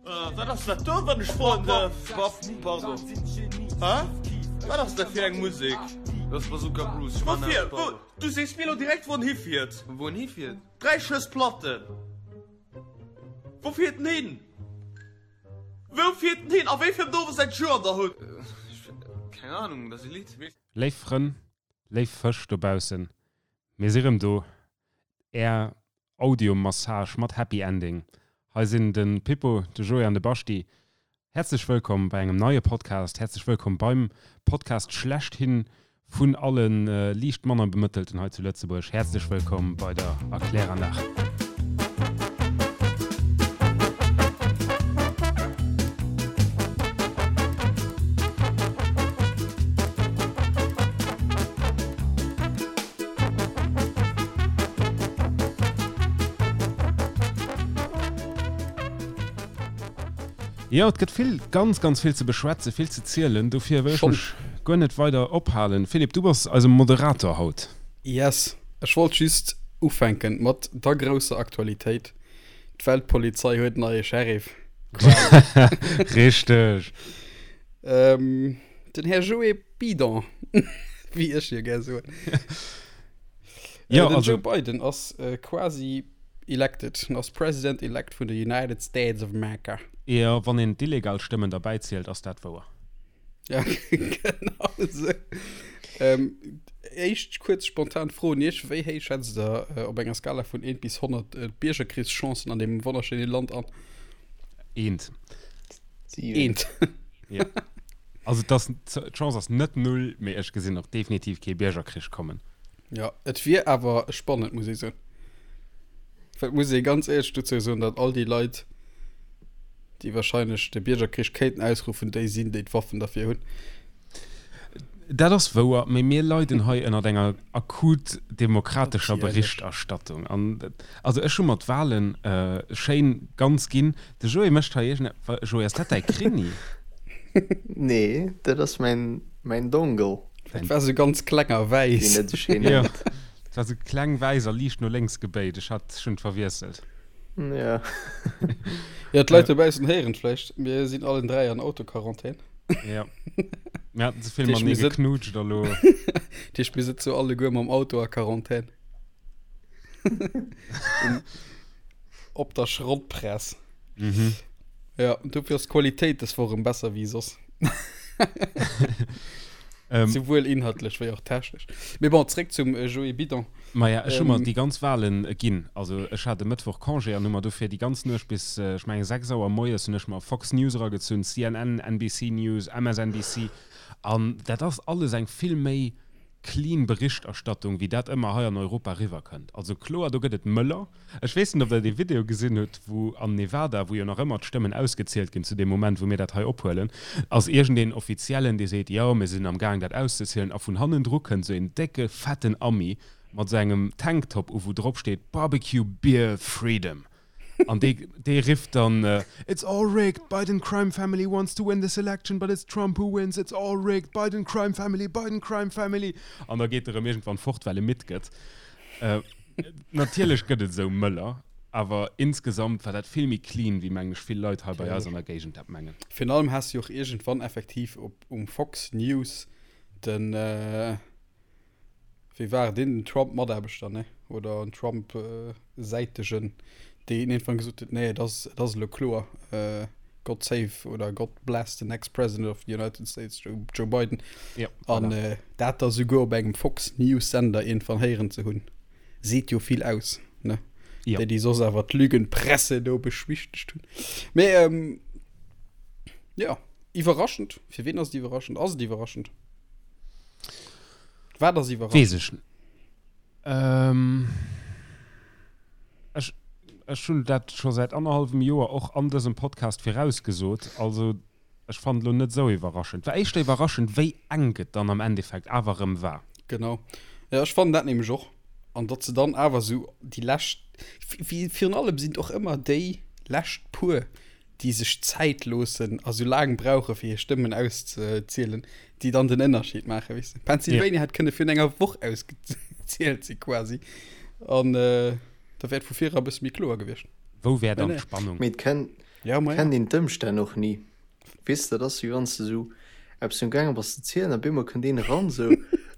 Wat ass dat do, wann ech froen dërf? Pardon. Hä? Wat ass dat fir eng Musek? Dat ass Bazooka Bruce. Woufir? Wou? Du sees mir elo direkt, wou en hifiert. Wou en hifiert? 3 Schëss Platten. Wou fiert en hin? Wou fiert en hin? A wéi vill Dowe säit Joer der hutt? Keng Ahnung, dat ass e Lidd. Léif Frënn, léif Fësch dobaussen, mir si rëm do, Är Audiomassage mat Happy Ending. Hei sinn de Pippo, de Joé an de Baschti. Häerzlech wëllkomm bei engem neie Podcast. Häerzlech wëllkomm beim Podcast schlechthin vun alle liicht manner Bemëttelten hei zu Lëtzebuerg. Häerzlech wëllkomm bei der Erkläranlag. Jo, et gëtt vill, ganz, ganz vill ze beschwätzen, vill ze zielen. Dofir wëll ech mech guer net weider ophalen. Philippe, du bass eise Moderator haut. Yes, ech wollt just ufänken mat der grousser Aktualitéit, D'Weltpolizei huet en neie Sheriff. Richteg. Den Här Joé Bidon, wéi ech jo gär soen. Ja, den also, Joe Biden ass quasi elected, ass President-elect vun de United States of America. Jo, wann een d'illegal Stëmmen derbäi zielt, ass dat wouer. Ja, genau esou. Ähm, éischt kuerz spontan Fro un Iech, Wéi héich schätzt Der äh, op enger Skala vun 1 bis 100 äh, d'Biergerkrichschancen an deem wonnerschéine Land an? Eent. Siwen. Eent. Ja. Also das, d'Chance ass net null, mee ech gesinn och definitiv kee Biergerkrich kommen. Ja, et wier awer spannend, muss ech soen. Well et muss ee ganz éierlech dozou soen, datt all déi Leit, déi wahrscheinlech de Biergerkrich kéinten ausruffen, déi sinn, déi d'Waffen derfir hunn. Dat ass wouer, mee mir leiden hei ënnert enger akut demokratescher Natierlech. Berichterstattung. An also ech hu mer d'Wahlen schéin ganz ginn. De Joé mécht hei iergend, Joé, ass dat däi Krinni? Nee, dat ass mäin, mäin Dongle. Dat war sou ganz kleng a Deen wäiss. net sou schéin Jo, nennt. dat war sou kleng, wäiss a liicht no lénks gebéit. Ech hat, ech hunn et verwiesselt. Ja. Ja, d'Leit dobaussen héieren et vläicht, mir sinn allen 3 an Autoquarantän. Ja. Mir haten ze vill Dat heescht, matenee mir sëtzen, geknutscht a lo. dat heescht, mir sëtze alleguer mam Auto a Quarantän. Um, op der Schrottpress. Mhm. Ja, und dofir ass d'Qualitéit des Woch erëm besser wéi soss. Ähm, Souwuel inhaltlech wéi och technesch. Mee bon, zréck zum äh, Joé Bidon. Maja, ech hu mer Ähm, déi ganz Wahlen ginn. Also ech hat e Mëttwoch Congé an hu mer dofir déi ganz Nuecht bis, ech mengen 6 Auer moies hunn ech mer Fox News eragezunn, CNN, NBC News, MSNBC. An dat ass alles eng vill méi clean Berichterstattung, wéi dat ëmmer hei an Europa riwwerkënnt. Also kloer, do gëtt et Mëller. Ech weess net, ob Der dee Video gesinn hutt, wou an Nevada, wou jo nach ëmmer d'Stëmmen ausgezielt ginn zu deem Moment, wou mir dat hei ophuelen, ass iergendeen Offiziellen, dee seet, jo, mir sinn am Gaang, dat auszezielen, a vun hannendru kënnt esou een décke, fetten Ami mat esou engem Tanktop u, wou drop steet, Barbecue Beer Freedom. An dee, dee rifft dann, It's all rigged, Biden crime family wants to win this election, but it's Trump who wins, it's all rigged, Biden crime family, Biden crime family. An da geet e rëm iergendwann fort, well e midd gëtt. Natierlech gëtt et esou Mëller, awer insgesamt war dat vill méi clean, wéi mengen ech vill Leit hei bei eis an der Géigend dat mengen. Virun allem has du jo och iergendwann effektiv op um Fox News den, Wéi war et, een Trump-Mataarbechter, ne, oder en Trump-Säitegen, deen iergendwann gesot huet, nee, et ass, et ass elo kloer, God save oder God bless the next president of the United States, Joe, Joe Biden. Ja, An voilà. äh, dat da souguer op engem Fox News-Sender iergendwann héieren ze hunn, seet jo vill aus, ne? Ja. Déi, déi soss awer d'Lügenpresse do beschwichtegt hunn. Mee, ähm, ja, iwwerraschend. Fir wien ass et iwwerraschend? Ass et iwwerraschend? Wat ass iwwerraschend? Weess ech ähm, ech, ech hunn dat scho säit annerhallwem Joer och an dësem Podcast virausgesot. Also ech fannen et elo net esou iwwerraschend. War éischter iwwerraschend, wéi enk et dann am Endeffekt awer erëm war. Genau. Ja, ech fannen dat nämlech och. An datt se dann awer esou déi lescht, virun allem sinn et och ëmmer déi lescht puer, déi sech Zäit loossen a sou laang brauche fir hir Stëmmen auszezielen, déi dann den Ënnerscheed maachen, weess de. Pennsylvania hätt kënne virun enger Woch ausgezielt si quasi an da wär et vu vir era e bësse méi kloer gewiescht. Wou wär Mä dann nee. d'Spannung? Mee et kënn. Ja, ma ja. Kennt een d'Ëmstänn och ni. Weess de, dat ass wéi wann s de esou eppes um gaange bass ze zielen a bemol kënnt een eran esou,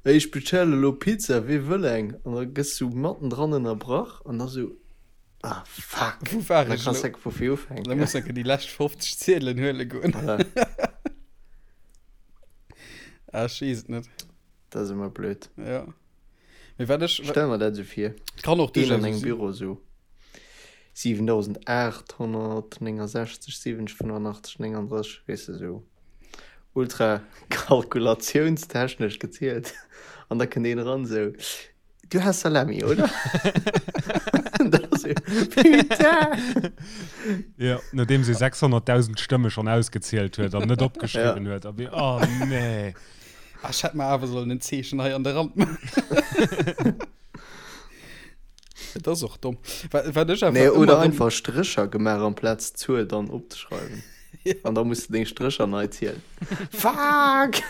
Ey, ech bestelle elo Pizza, wee wëll eng? An da gëss du mattendran ënnerbrach an da sou, Ah fuck! Wou war An da ech kanns elo? de vu vir ufänken. Da muss enke déi lescht 50 Ziedelen huele goen. Voilà. Ah, ech weess et net. Dat ass ëmmer blöd. Ja. Mee wat ech. Stell mer dat esou vir. Kann och Een duerchaus an engem sinn. Büro esou 7869 70 85 39, weess de, esou ultra kalkulationstechnesch gezielt. An da kënnt een eran esou, Du has Salami, oder? Da esou, Putain! Jo, nodeems ee 600.000 Stëmme schonn ausgezielt huet an net opgeschriwwen huet. A oh nee. Ah, ech hätt mer awer sollen en Zeechen hei an de Rand maachen. Et ass och domm. Wat, wat ech awer Nee, ëmmer oder erëm- einfach Strécher gemaach amplaz d'Zuel dann opzeschreiwen. Ja. An da muss de deng Strécher nei zielen. Fuck!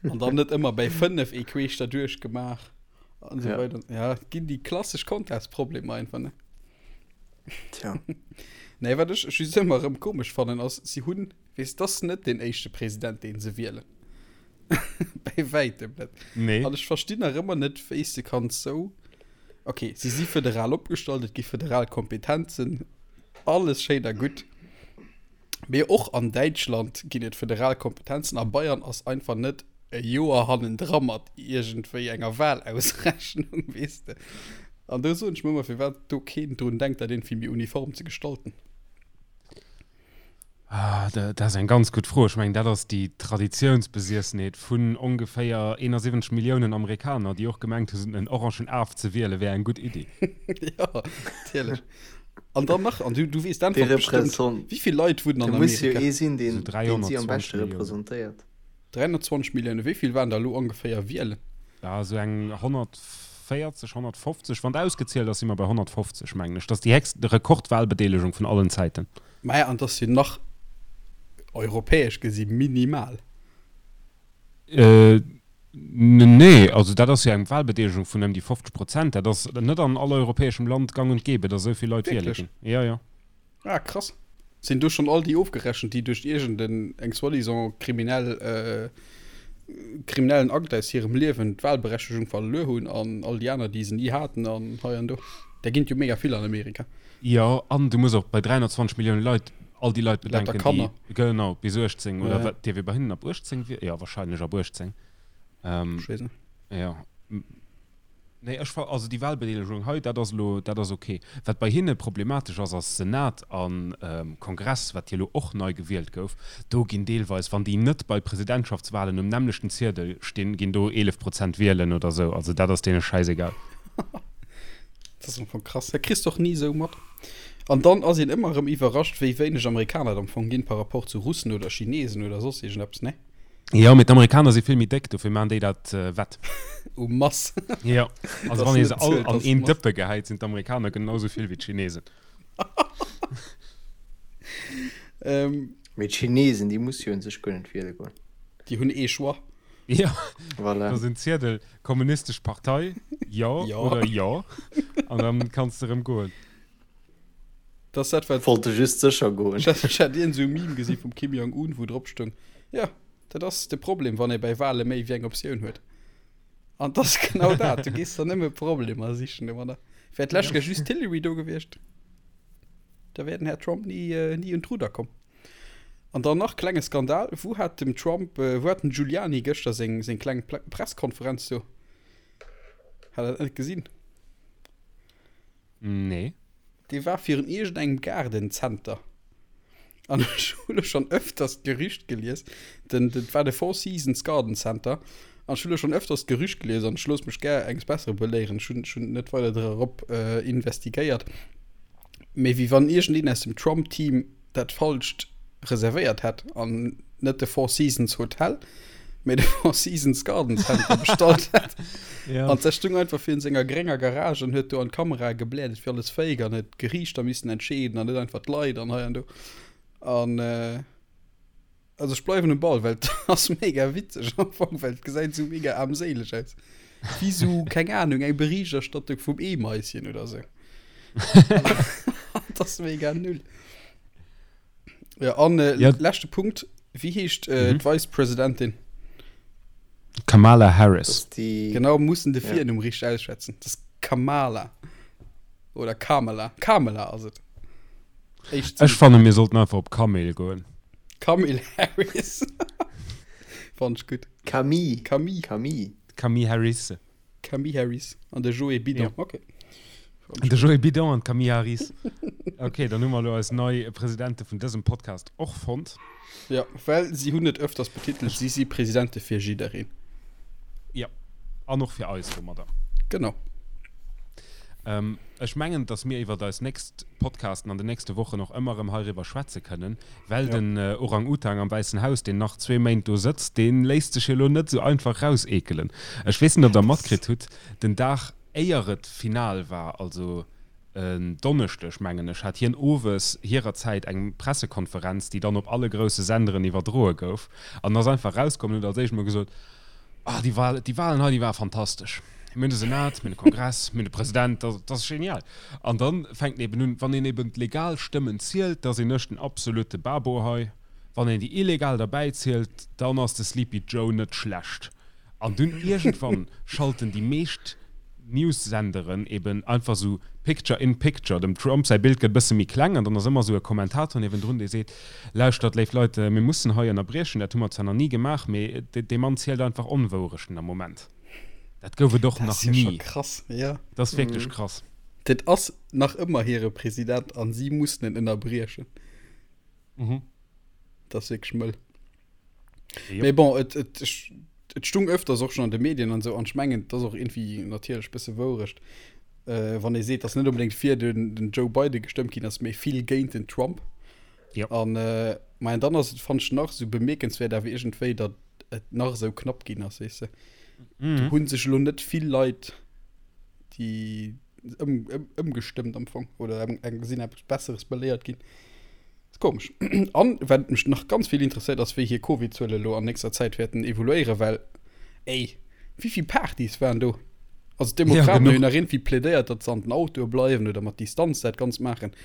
An dann net ëmmer bäi 5 ee queesch derduerch gemaach an esou Ja. weider. Ja, et ginn déi klassesch Contest-Problemer einfach, ne? Tja. Nee, wat ech just ëmmer erëm komesch fannen, ass, si hunn, weess, dat ass net deen éischte President, deen se wielen. Bäi wäitem net. Nee. An ech verstinn nach ëmmer net, wéi s de kanns sou. Okay, si si federal opgestallt, et gi federal Kompetenzen, alles schéin a gutt. Mee och an Däitschland ginn et federal Kompetenzen a Bayern ass einfach net e Joer hannendra mat iergendwéi enger Wahlausrechnung, weess de. An do soen ech mer ëmmer, firwat do keen drun denkt, dat iergendwéi méi uniform ze gestalten. Ah, dat ass eng ganz gutt Fro. Ech mengen, dat ass déi Traditiounsbesiessenheet vun ongeféier 71 Milliounen Amerikaner, déi och gemengt hunn, en orangen Af ze wiele wär eng gutt Iddi. Jo, natierlech. An dann nach, an du, du weess Dee d'Äntwert bestimmt, Represent- wéi vill Leit wunnen Do an muss jo Amerika? ee sinn, deen, So deen si am 320 beschte Milliounen. representéiert. 320 Milliounen, wéi vill waren der elo ongeféier wielen? Ja, esou eng 140, 150, wann ausgezielt ass, si mer bei 150, mengen ech. Dat ass déi héchst Rekordwahlbedeelegung vun allen Zäiten. Maja, an 't ass jo nach europäesch gesi minimal. Äh, nee, also dat ass jo eng Wahlbedeelegung vun ëm déi 50 Prozent. Dat ass net an all europäeschem Land gang und gäbe, datt esou vill Leit wiele Wierklech? ginn. Ja, ja. Ah, krass. Sinn do schonn all déi ofgerechent, déi duerch iergend eng soi-disant kriminell, kriminellen Akt aus hirem Liewen d'Wahlberechtegung verluer hunn an all déi aner, déi se ni haten an hei an do? Där ginn et jo mega vill an Amerika. Jo, an du muss och bei 320 Millioune Leit all déi Leit Lauter bedenken, déi, Kanner. genau, bis 18 oder Ja. wat, dierf ee bei hinnen ab 18 wielen? Jo, wahrscheinlech ab 18. Ähm, Ech weess net. jo. Nee, ech fa also déi Wahlbedeelegung hei, dat ass elo, dat ass ok. Wat bei hinne problematesch ass, ass Senat a Kongress, wat jo elo och nei gewielt gouf. Do ginn deelweis, wann déi net bei Presidentschaftswahlen um nämmlechten Ziedel stinn, ginn do 11 Prozent wielen oder esou. Also dat ass deene schäisegal. Dat ass am Fong krass. Dat kriss de och ni esou mat. An dann ass een ëmmer erëm iwwerrascht, wéi wéineg Amerikaner et am Fong ginn par rapport zu Russen oder Chinesen oder soss iergendeppes, ne? Jo, mee d'Amerikaner si vill méi déck, dofir maachen déi dat wett. U Mass. Jo, also Dass wann ee net se all zielt an als een Mass. Dëppe gehäit, sinn d'Amerikaner genau sou vill wéi d'Chinesen. Ähm, Mee d'Chinesen, déi musse jo un sech guer net wiele goen. déi hunn ee Choix. Jo, Voilà. da sinn Ziedel, Kommunistesch Partei, jo Jo. oder jo, an dann kanns de rëm goen. Das dat wat Wollte just sécher goen. Ech hat, ech hat iergend esou e Meme gesi vum Kim Jong-un, wou drop stoung, Jo, dat ass de Problem, wann ee bei Wale méi wéi eng Optioun huet. An 't ass genau dat, du gees der nëmme Problemer sichen domadder. Wär d'lescht Kéier just d'Hillary do gewiescht, da wär den Här Trump ni, ni un d'Rudder komm. An dann nach, klenge Skandal, Wou hat dem Trump, wou hat den Giuliani gëschter seng, seng kleng Presskonferenz do? Hat der dat net gesinn? Nee. Dee war virun iergendengem Gaardencenter. An ech hu lo schonn ëfters d'Gerücht gelies, den, dat war de Four Seasons Garden Center, an ech hu lo schonn ëfters d'Gerücht gelies, an ech looss mech gär enges Bessere beléieren, ech hunn, ech hunn net weider drop investigéiert, mee wéi wann iergendeen aus dem Trump-Team dat falscht reservéiert hätt an net de Four Seasons Hotel, mee de Four Seasons Garden Center bestallt hätt. Ja. An der stung einfach virun senger grénger Garage an huet do an d'Kamera gebläert, et wier alles fake an huet d'Geriichter missen entscheeden an net einfach d'Leit an hei an do. An äh, also ech bleiwen um Ball, well et ass mega witzeg am Fong, well et gesäit esou mega aarmséileg aus. Wéi sou, keng Ahnung, eng Berichterstattung vum Eemaischen oder sou. Dat ass mega null. Ja, an äh, ja. leschte Punkt, wéi heescht äh, mhm. d'Vice-Presidentin? Kamala Harris. Die... Genau, mussen de Virnumm ja. richtig ausschwätzen. Das ist Kamala. Oder Kamala. Kamala ass et. Ech fanne mir sollten einfach op Kamel goen. Kamel Harris. Fand ich gut. Camille. Camille. Camille. Camille Harris. Camille Harris an de Joé Bidon. Ja. Okay. De Joé Bidon an d'Camille Harris. Okay, dann hu mer elo eis nei Presidente vun dësem Podcast och fonnt. Ja, well si hunn et öfters betitelt, si si Presidente fir jiddereen. Ja, an och fir eis domadder. Genau. Ähm, ech mengen, dass mir iwwer eis nächst Podcasten an den nächste Wochen och ëmmer erëm heiriwwer schwätze kënnen, well ja. den äh, Orang-Utang am Wäissen Haus, deen nach zwee Méint do sëtzt, dee léisst sech jo elo net esou einfach rauseekelen. Ech weess net, ob Der matkritt hutt, den Dag éier et final war, also en Donneschdeg, mengen ech, hat hien owes hirer Zäit eng Pressekonferenz, déi dann op alle grousse Senderen iwwerdroe gouf, an ass einfach rauskomm an huet als éischt emol gesot, Ah, déi Wahl, déi Wahlen hei, déi ware fantastesch. Mir hunn de Senat, mir hunn de Kongress, mir hunn de President, dat ass genial. An da fänkt en eben un, wann een eben d'legal Stëmmen zielt, da sinn ech den absolute Babo hei. Wann een déi illegal derbäi zielt, dann ass de Sleepy Joe net schlecht. An dunn iergendwann schalten déi meescht News-Senderen eben einfach esou Picture in Picture, dem Trump säi Bild gëtt e bësse méi kleng an dann ass ëmmer esou e Kommentator niewendrun, dee seet, Lauschtert, léif Leit, mir mussen hei ënnerbriechen, dat hu mer zwar nach ni gemaach, mee dee Mann zielt einfach Onwourechten am Moment. Dat gouf et och nach ni. Dat ass jo scho krass, jo. Dat ass wierklech krass. Dat ass nach ëmmer hire President an si mussen en ënnerbriechen. Dat ass wierklech mëll. Mee bon, et, et, et stung öfters och schon an de Medien an sou an ech mengen, et ass och irgendwie natierlech bësse Wourecht, äh, wann ee seet, dass net unbedéngt fir den, den Joe Biden gestëmmt ginn ass, mee vill géint den Trump. Ja. An äh, ma dann ass et fand ech nach sou bemierkenswäert awer iergendwéi, datt et nach esou knapp ginn ass, weess de. Mhm. Do hunn sech elo net vill Leit déi ëm, ëm, ëmgestëmmt am Fong oder eng, eng sinn eppes Besseres beléiert ginn. Ass komesch. An wat mech nach ganz vill interesséiert ass, wéi hir Covid-Zuele lo an nächster Zäit wäerten evoluéieren, well ey, wéi vill Partys waren do? Also d'Demokraten hunn nach irgendwie plädéiert, datt se an den Autoe bleiwen oder mat Distanz dat Ganzt maachen.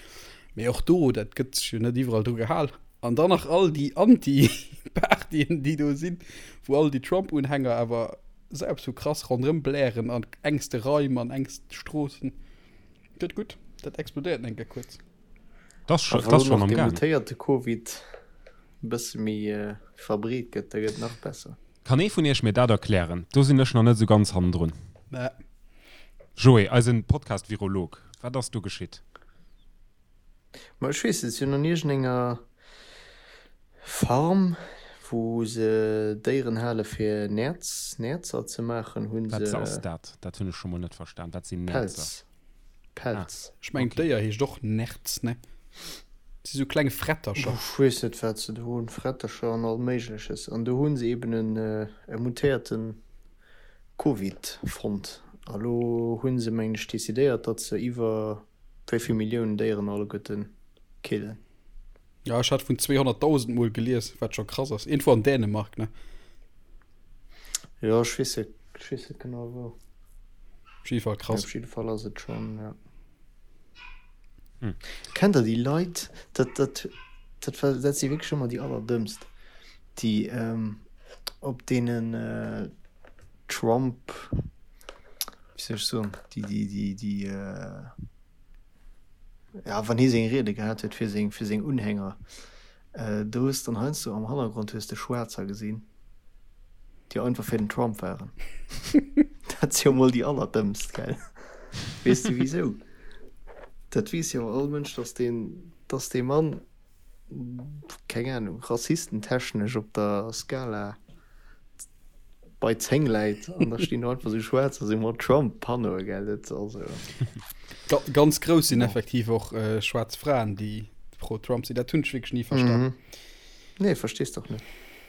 Mee och do, dat gëtt sech jo net iwwerall dru gehal. An dann nach all déi Anti-Partyen, déi do sinn, wou all déi Trump-Unhänger awer esou eppes vu krass ronderëm blären an engste Raim an engste Stroossen. Gëtt gutt, dat explodéiert enke kuerz. Das schon, das schon am Gang. Mutéierte Covid e bësse méi verbreet gëtt, da gëtt nach besser. Kann ee vun iech mir dat erklären? Do sinn ech nach net esou ganz hannendrun. Nä. Joé, eisen Podcast-Virolog, wat ass do geschitt? Ma ech weess net, si hunn an iergendenger Farm, wou se Déieren hale fir Nerz, Nerzer ze maachen, hu se. Wat ass dat? Dat hunn ech scho mol net verstan. Wat sinn Nerzer? Pelz. Pelz. Ah, ech mengen okay. d'Déier heescht och Nerz, ne? Si sou kleng Frettercher. Ech weess net wat se do hunn, Frettercher an all Méigleches. An do hu se eben en e mutéierte Covid fonnt. A lo hu se, mengen ech, decidéiert, datt se iwwer wéi vill Milliounen Déieren alleguerte killen. Ja, ech hat vun 200.000 mol gelies, wat scho krass ass. Iergendwou an Dänemark, ne? Jo, ech weess net, ech weess net genau wou. Op jidde Fall krass. Op jidde Fall ass et schonn, ja. Hm. Kennt der déi Leit, dat, dat, dat war, dat si wierklech ëmmer déi allerdëmmst, déi ähm, op deenen äh, Trump, wéi soll ech soen, déi, déi, déi, déi äh, ja, wann hie seng Riede gehat huet fir seng, fir seng Unhänger, äh, do hues dann heiansdo am Hannergrond hues de Schwaarzer gesinn, déi einfach fir den Trump waren. Dat si jo mol déi allerdëmmst, gell? Weess de wisou? Dat weess jo all Mënsch, dass deen, dass dee Mann, keng Ahnung, rassistentechnesch op der Skala bei 10 läit an da stinn do einfach sou Schwaarzer sou mat Trump-Panneaue, gell? Dat also. Ga ganz grouss sinn effektiv och äh, schwaarz Fraen, déi pro Trump sinn. Dat hunn ech wierklech ni verstan. Mhm. Nee, verstees doch net.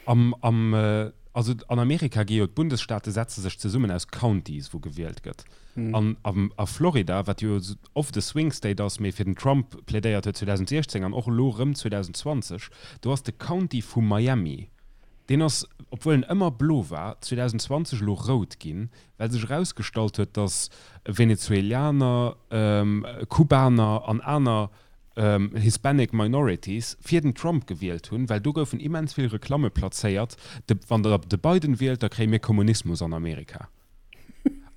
Am, am, äh, also an Amerika gi jo d'Bundesstaate setze sech zesummen aus Counties, wou gewielt gëtt. Mhm. An am, a Florida, wat jo oft e Swing State ass, mee fir den Trump plädéiert huet 2016 an och elo rëm 2020, do ass de County vu Miami, Deen ass, obwuel en ëmmer blo war, 2020 elo rout ginn, well sech erausgestallt huet, datt Venezuelianer, Kubaner an aner. Hispanic Minorities fir den Trump gewielt hunn, well do goufen immens vill Reklamme plazéiert, de wann der de Biden wielt, da kréie mir Kommunismus an Amerika.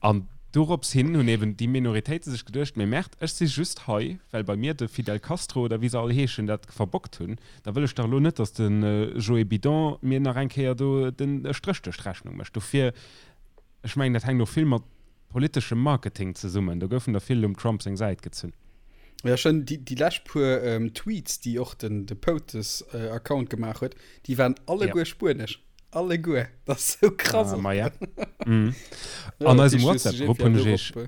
An dorops hin hunn eben déi Minoritéite sech geduecht, mee Merde, ech si just hei, well bei mir de Fidel Castro oder wéi se all heeschen dat verbockt hunn, da wëll ech dach elo net, datt de Joe Bidon mir nach eng Kéier do den Stréch duerch d'Rechnung mécht. Dofir, ech mengen, dat hänkt och vill mat politeschem Marketing zesummen. Do goufen der vill um Trump seng Säit gezunn. Ja schon déi, déi lescht puer ähm, Tweets, déi och den, de POTUS äh, Account gemaach huet, déi waren alleguer ja. spuenesch. Alleguer. Dat ass sou krass. Ah, ma ja. mm. ja, An eisem WhatsApp-Grupp hunn ech iech äh,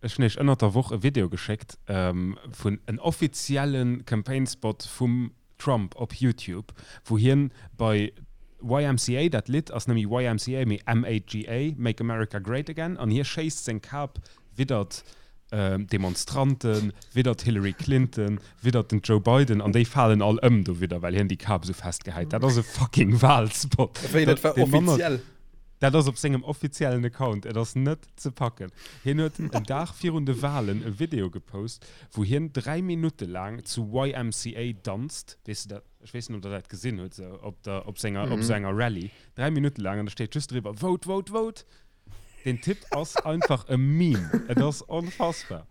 ech hunn iech ënnert der Woch e Video geschéckt ähm, vun en offiziellen Campaign-Spot vum Trump op YouTube, wou hien bei YMCA, dat Lidd ass net méi YMCA, mee MAGA, Make America Great Again, an hie schéisst seng Kap widdert Demonstranten, widdert Hillary Clinton, widdert den Joe Biden, an déi falen all ëm dowidder, well hien déi Kap esou fest gehäit. Dat ass e fucking Wahlspot. Wéi, dat war offiziell? Dat ass op sengem offiziellen Account. Et ass net ze packen. Hien huet en Dag virun de Wahlen e Video gepost, wou hien 3 Minutte laang zu YMCA danzt, weess de dat, ech weess net ob der dat gesinn hutt, sou op der, op senger, op sou enger Rallye, 3 Minutte laang an da steet just driwwer Vote, vote, vote! Den Typ ass einfach e Meme, et ass onfassbar.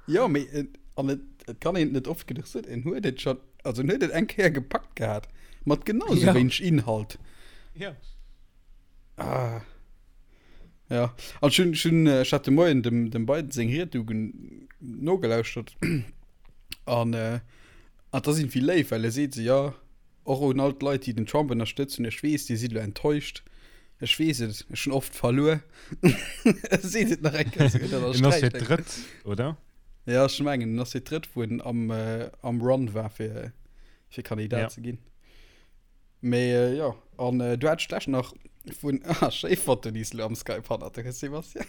Jo, mee et, an et, et kann een et net oft genuch soen, en huet et schonn, also en huet et eng Kéier gepackt gehat, mat genau sou wéineg Inhalt. Jo. Ah. Ja, an ech hunn, ech hunn, ech hat de Moien dem, dem Biden seng Ried du nogelauschtert an äh, an dat ass irgendwie léif, well e seet se, ja, och un all d'Leit, déi den Trump ënnerstëtzen, ech weess, dir sidd elo enttäuscht, ech weess et, ech hunn oft verluer. E seet et nach eng Kéier, esou, dat En ass fir d'drëtt, oder? Ja, ech mengen, en ass fir d'drëtt, wou en am, äh, am Run war, fir, fir Kandidat ja. ze ginn. Mee jo, an du hat ech nach vun ah, schéi Foto déi s du am Skype hannert der hues Sebastian.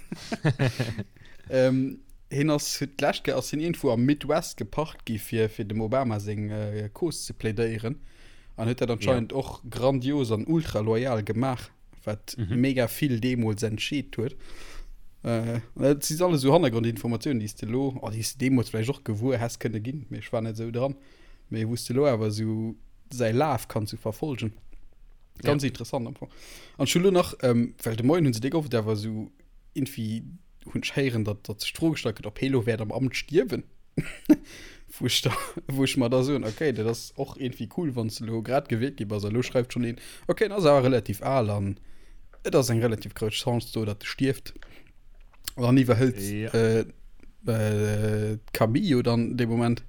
ähm, hien ass huet d'lescht Kéier ass hien iergendwou am Midwest geparkt gi fir fir dem Obama seng äh, Cause ze plädéieren an huet dat anscheinend ja. och grandios an ultra loyal gemaach, wat mhm. mega vill deemools entscheet huet. Äh, dat si alles so Hannergrondinformatiounen, déi s de lo, oh, déi s de deemools vläicht och gewuer häss kënne ginn, mee ech war net esou dran. Mee wou s de lo awer esou säi Laf kanns sou verfolgen. Ganz ja. interessant am Fong. An ech hu lo nach, ähm, well de Moien hunn se déck oft awer esou irgendwie hunn ech héieren, datt datt sech d'Fro gestallt gëtt, ob hee lo wäert am Amt stierwen. wou ech da, wou ech mer da soen, okay, dat ass och irgendwie cool, wann s de lo grad gewielt gi bass a lo schreift schonn een, okay, en ass awer relativ al an et ass eng relativ grouss Chance do, datt e stierft. An iwwerhëlt ja. äh, äh, d'Camille jo dann dee Moment.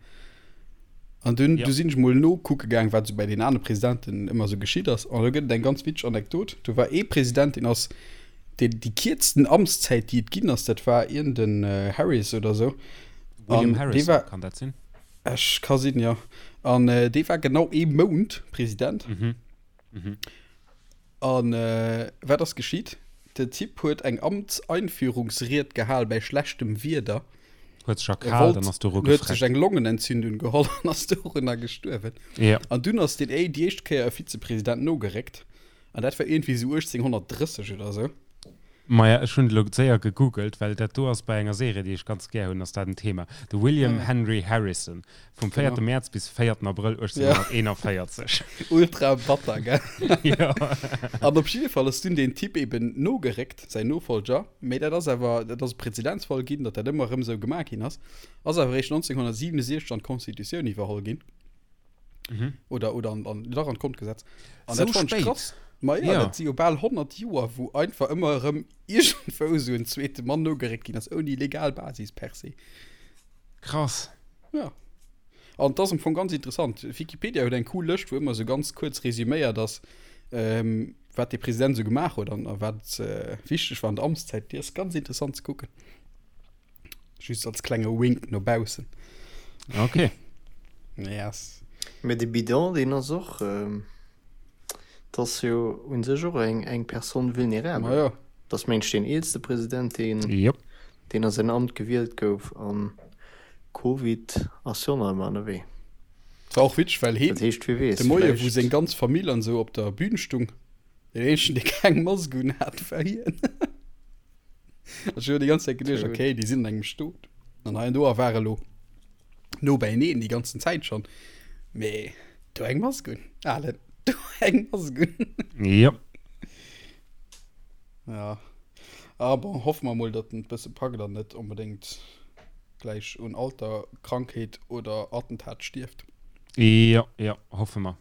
An dunn, ja. du sinn ech mol nokucke gaang, wat sou bei den anere Presidenten ëmmer sou geschitt ass. An do gëtt et eng ganz witzeg Anekdot. Do war ee President, deen ass deen déi kierzten Amtszäit, déi et ginn ass, dat war iergend en äh, Harris oder sou. William An Harris, war, kann dat sinn? Ech ka sinn, ja. An äh, dee war genau ee Mount President. Mhm. Mhm. An wat ass geschitt? Den Typ huet eng Amtseinführungsried gehal bäi schlechtem Wieder. Huet sech erkaalt an ass doru gefreckt. Huet sech eng Longenentzündung geholl an ass dorunner gestuerwen. Ja. An dunn ass deen déi éischt Kéier e Vizepresident nogeréckt. An dat war iergendwéi esou 1830 oder esou. Maja, ech hunn et elo séier gegoogelt, well dat do ass bei enger Serie, déi ech ganz gär hunn, ass dat en Thema. De William Henry Harrison, vum véierte Mäerz bis véierten Abrëll 1841. Ultra batter, gell? Jo. An op jidde Fall ass dunn deen Typ eben nogeréckt, säin Nofollger, mee dat ass awer, dat ass e Prezedenzfall ginn, datt dat ëmmer erëm esou gemaach ginn ass, ass awer eréischt 1967 an d'Constitutioun iwwerholl ginn. Mhm. Oder, oder an, an, dach an d'Grondgesetz. An So dat fand ich spéit. krass. Ma ja, Ja. dat si jo bal 100 Joer, wou einfach ëmmer erëm iergendwou esou en zweete Mann nogeréckt ginn ass, ouni legal Basis per se. Krass. Ja. An dat ass am Fong ganz interessant. Wikipedia huet eng cool Lëscht, wou ëmmer esou ganz kuerz resüméiert ass, ähm, wat de President esou gemaach huet an a wat äh, wichteg war an der Amtszäit. Déi ass ganz interessant ze kucken. Just als klenge Wink no baussen. Okay. Yes. Mee de Bidon, deen ass och, dat ass jo u sech och eng, eng Personne vulnérable. Ma jo. Dat ass mengt ech deen eelste President, deen, Jop. deen a säin Amt gewielt gouf. An Covid ass jo nach ëmmer ënnerwee. Et war och witzeg, well heen Dat heescht, wie weess, de Moie, wou vläicht. seng ganz Famill an esou op der Bühn stung, deen eenzegen, dee keng Mask un hat, war hien. Ech hu déi ganz Zäit geduecht, okay, déi sinn an engem Stot. An hei an do a war elo. No beieneen déi ganzen Zäit schonn. Mee do eng Mask un, Alen, do eng Mask un. Jo. Ja. Ah bon, hoffe mer mol, datt en et bësse packt an net onbedéngt gläich un Alter, Krankheet oder Attentat stierft. Jo, jo, hoffe mer.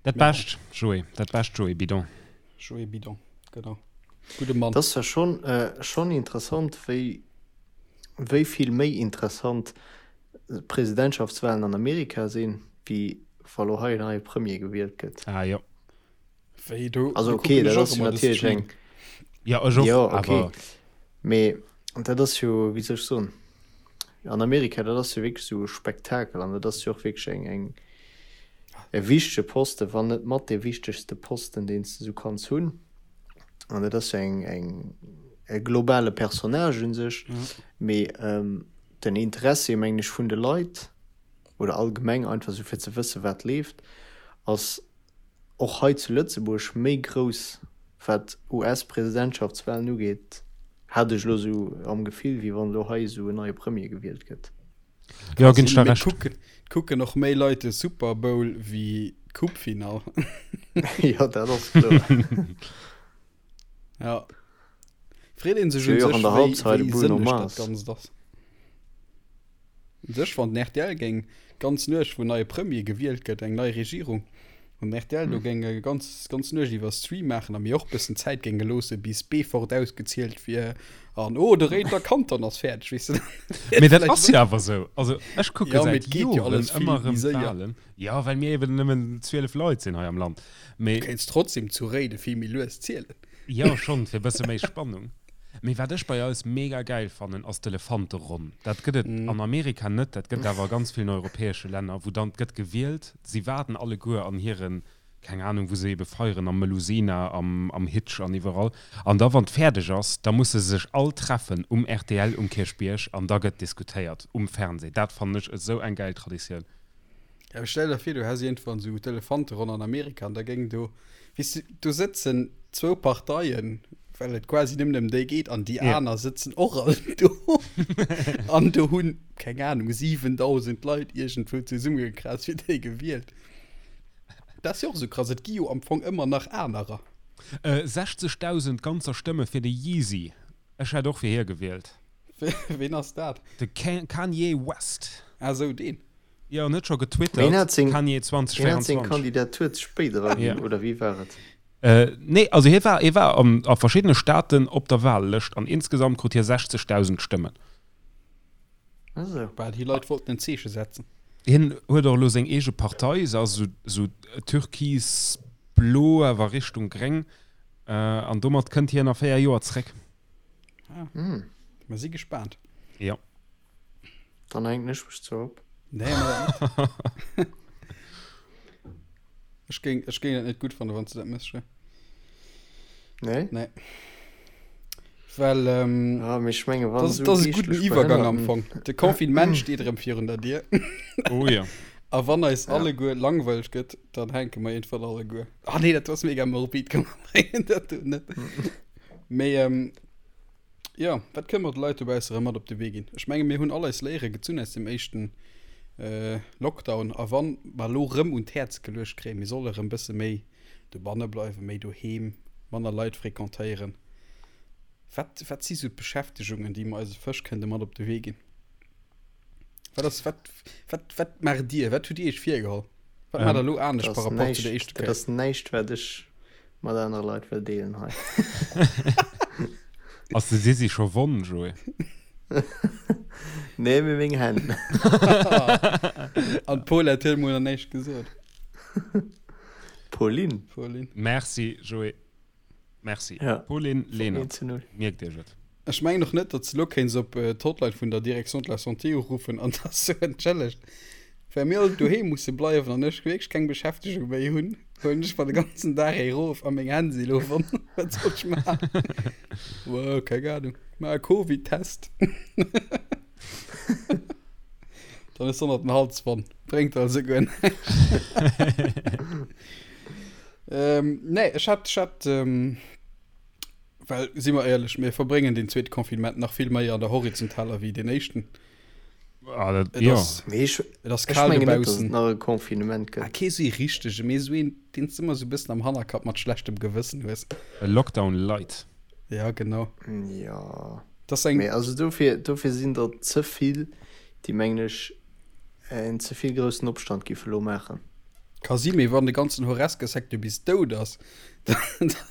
Dat Bescht, Joé, dat Bescht, Joé Bidon. Joé Bidon, genau. Gudde Mann. Et ass zwar schonn, schonn interessant, wéi, wéi vill méi interessant d'Presidentschaftswalen an Amerika sinn, wéi wa lo hei en neie Premier gewielt gëtt. Ah jo. Wéi do, Also do okay, kucken dat ech och ass jo ëmmer de natierlech Stream. eng. Ja, ech och, Jo, okay. awer. Mee dat ass jo, wéi soll ech soen, an Amerika, dat ass jo wierklech esou e Spektakel an dat ass jo och wierklech eng, eng, e wichtege Posten, wann net mat dee wichtegste Posten, deen s de esou kanns hunn. An dat ass jo eng, eng, e globale Personnage u sech. Mee den Interessi, mengen ech, vun de Leit oder allgemeng einfach esou fir ze wëssen, wat leeft, ass och hei zu Lëtzebuerg méi grouss, wat US-Presidentschaftswalen ugeet, hat ech elo esou am Gefill, wéi wann elo hei esou en neie Premier gewielt gëtt. Jo, ginn ech der Recht. Kucken, kucken och méi Leit de Super Bowl wéi d'Coupe-Finall. Jo, dat ass kloer. Ja. Freet een sech Jo, un jo, sech, an der wéi, Halbzeit wéi Bruno sënneg dat Mars. Ganzt ass. Un sech, wann den rtl géing d'ganz Nuecht, wou en neie Premier gewielt gëtt, eng nei Regierung, wann den rtl do géing e ganz, ganz Nuecht iwwer Stream maachen a mir och bëssen Zäit géinge loosse bis Beefort ausgezielt wier an oh, de Réider Kanton ass fäerdeg, weess de, dann Mee dat vläicht ass jo awer esou. Also ech kucke Ja, mee säit et geet jo Joren alles vill ëmmer méi erëm séier. d'Walen. Jo, well mir eben nëmmen 12 Leit sinn hei am Land. Mee. Du kéints trotzdem zu Réide vill méi lues zielen. Jo, schonn, fir e bësse méi Spannung. Mee wat ech bei eis mega gäil fannen, ass d'Elefanteronn. Dat gëtt et an Amerika net, dat gëtt et awer a ganz villen europäesche Länner, wou dann, 't gëtt gewielt, si waarden alleguer an hiren, keng Anung, wou se ebe feieren, am Melusina, am, am Hitch an iwwerall. An da wann 't fäerdeg ass, da musse se sech all treffen um rtl um Kierchbierg an da gëtt diskutéiert um Fernseh. Dat fannen ech esou eng gäil Traditioun. Ja, mee stell der vir, du häss iergendwann esou d'Elefanteronn an Amerika an da géing do, weess du, do sëtzen zwou Parteien, well et quasi nëmmen ëm déi geet an déi Ja. aner sëtzen och all do an do hunn, keng Ahnung, 7.000 Leit iergendwou zesummegekraazt fir déi gewielt. Dat ass jo och esou krass, et gi jo am Fong ëmmer nach anerer. Äh, 60.000 ganzer Stëmme fir de Yeezy. Ech hätt och fir hie gewielt. Ween ass dat? De Kanye West. Ah sou, deen. Jo, en huet scho Ween getwittert, hat seng, Kanye ween hat seng 2024. Kandidatur ze spéit eraginn, Ja. oder wéi war et? Äh, nee, also hie war, hie war an, a verschiddene Staaten op der Wahllëscht an insgesamt krut hie 60.000 Stëmmen. Ah sou. Bah, déi Leit wollten en Zeeche setzen. Hien huet och elo seng eege Partei, se ass esou, esou türkis-blo, awer Richtung gréng, äh, an domat kënnt hien a 4 Joer zréck. Ah. Hm. Mer si gespaant. Jo. Dann hänken ech mech zwar op. Nee, mach dat net. Ech géing, ech géing dat net gutt fannen, wann s du dat méchs, Joé. Nee? Nee. Well, ähm, Ah, mee ech menge wann das, esou das ass e gudden geeschtlech Iwwergang am Behënnerten. Fong. De Confinement steet erëm virun der Dier. Oh jo. A wann eis Ja. alleguer langweileg gëtt, dann hänke mer iergendwann alleguer. Ah nee, dat ass mega morbid, komm mer bréngen dat do net. Mee, ähm, Jo, wat kënne mer de Leit dobausse erëm mat op de Wee ginn? Ech menge mir hunn all eis Léiere gezunn aus dem éischten Lockdown. A wann mer elo rëm un d'Häerz geluecht kréien, mir solle rëm bësse méi dobanne bleiwen, méi doheem, manner Leit frequentéieren, wat, wat si sou d'Beschäftegungen, déi mer eise Fësch kënnte mat op de Wee ginn? Wat ass, wat, wat, wat maacht Dir? Wat hutt Dir Iech virgeholl? Wat maacht Der elo anescht Dat par ass rapport zu der näischt, éischter dat Kéier? ass näischt, wat ech mat anere Leit wëll deelen hei. Ass de Sisi scho wonn, Joé? Nee, mee meng Hänn. An d'Paulette huet mol nach näischt gesot. Pauline. Pauline. Merci, Joé. Merci. Ja. Pauline Lenert. 1 zu 0. Mierkt Iech et. Ech mengen och net, datt s de elo kéints op d'Hotline vun der Direction de la Santé uruffen an da soen, Entschëllegt, well mir all doheem musse bleiwen an ech wierklech keng Beschäftegung méi hunn, huelen ech mer de ganzen Dag ee rof a meng Hänn si elo wonn. Wat soll ech maachen? Wow, keng Ahnung. Maach e Covid-Test. Dann hues de och nach den Hals wonn. Bréngt also guer näischt. Ähm, nee, ech hat, ech hat, ähm, well, si mer éierlech, mir verbréngen deen zweete Confinement nach vill méi an der horizontaler wéi deen éischten. Ah, dat, Et jo. ass, Mee ech, et ass ech kal mengen net, dass et dobaussen. nach e Confinement Ah, gëtt. kee sou ee richtege, mee sou een, deen s de ëmmer sou e bëssen am Hannerkapp mat schlechtem Gewëssen hues. E Lockdown light. Ja, genau. Jo. Dat ass eng. Mee also dofir, dofir sinn der ze vill, déi mengen ech en ze vill groussen Opstand giffe lo maachen. Ka si, mee wann de ganzen Horesca-Secteur bis dout ass, da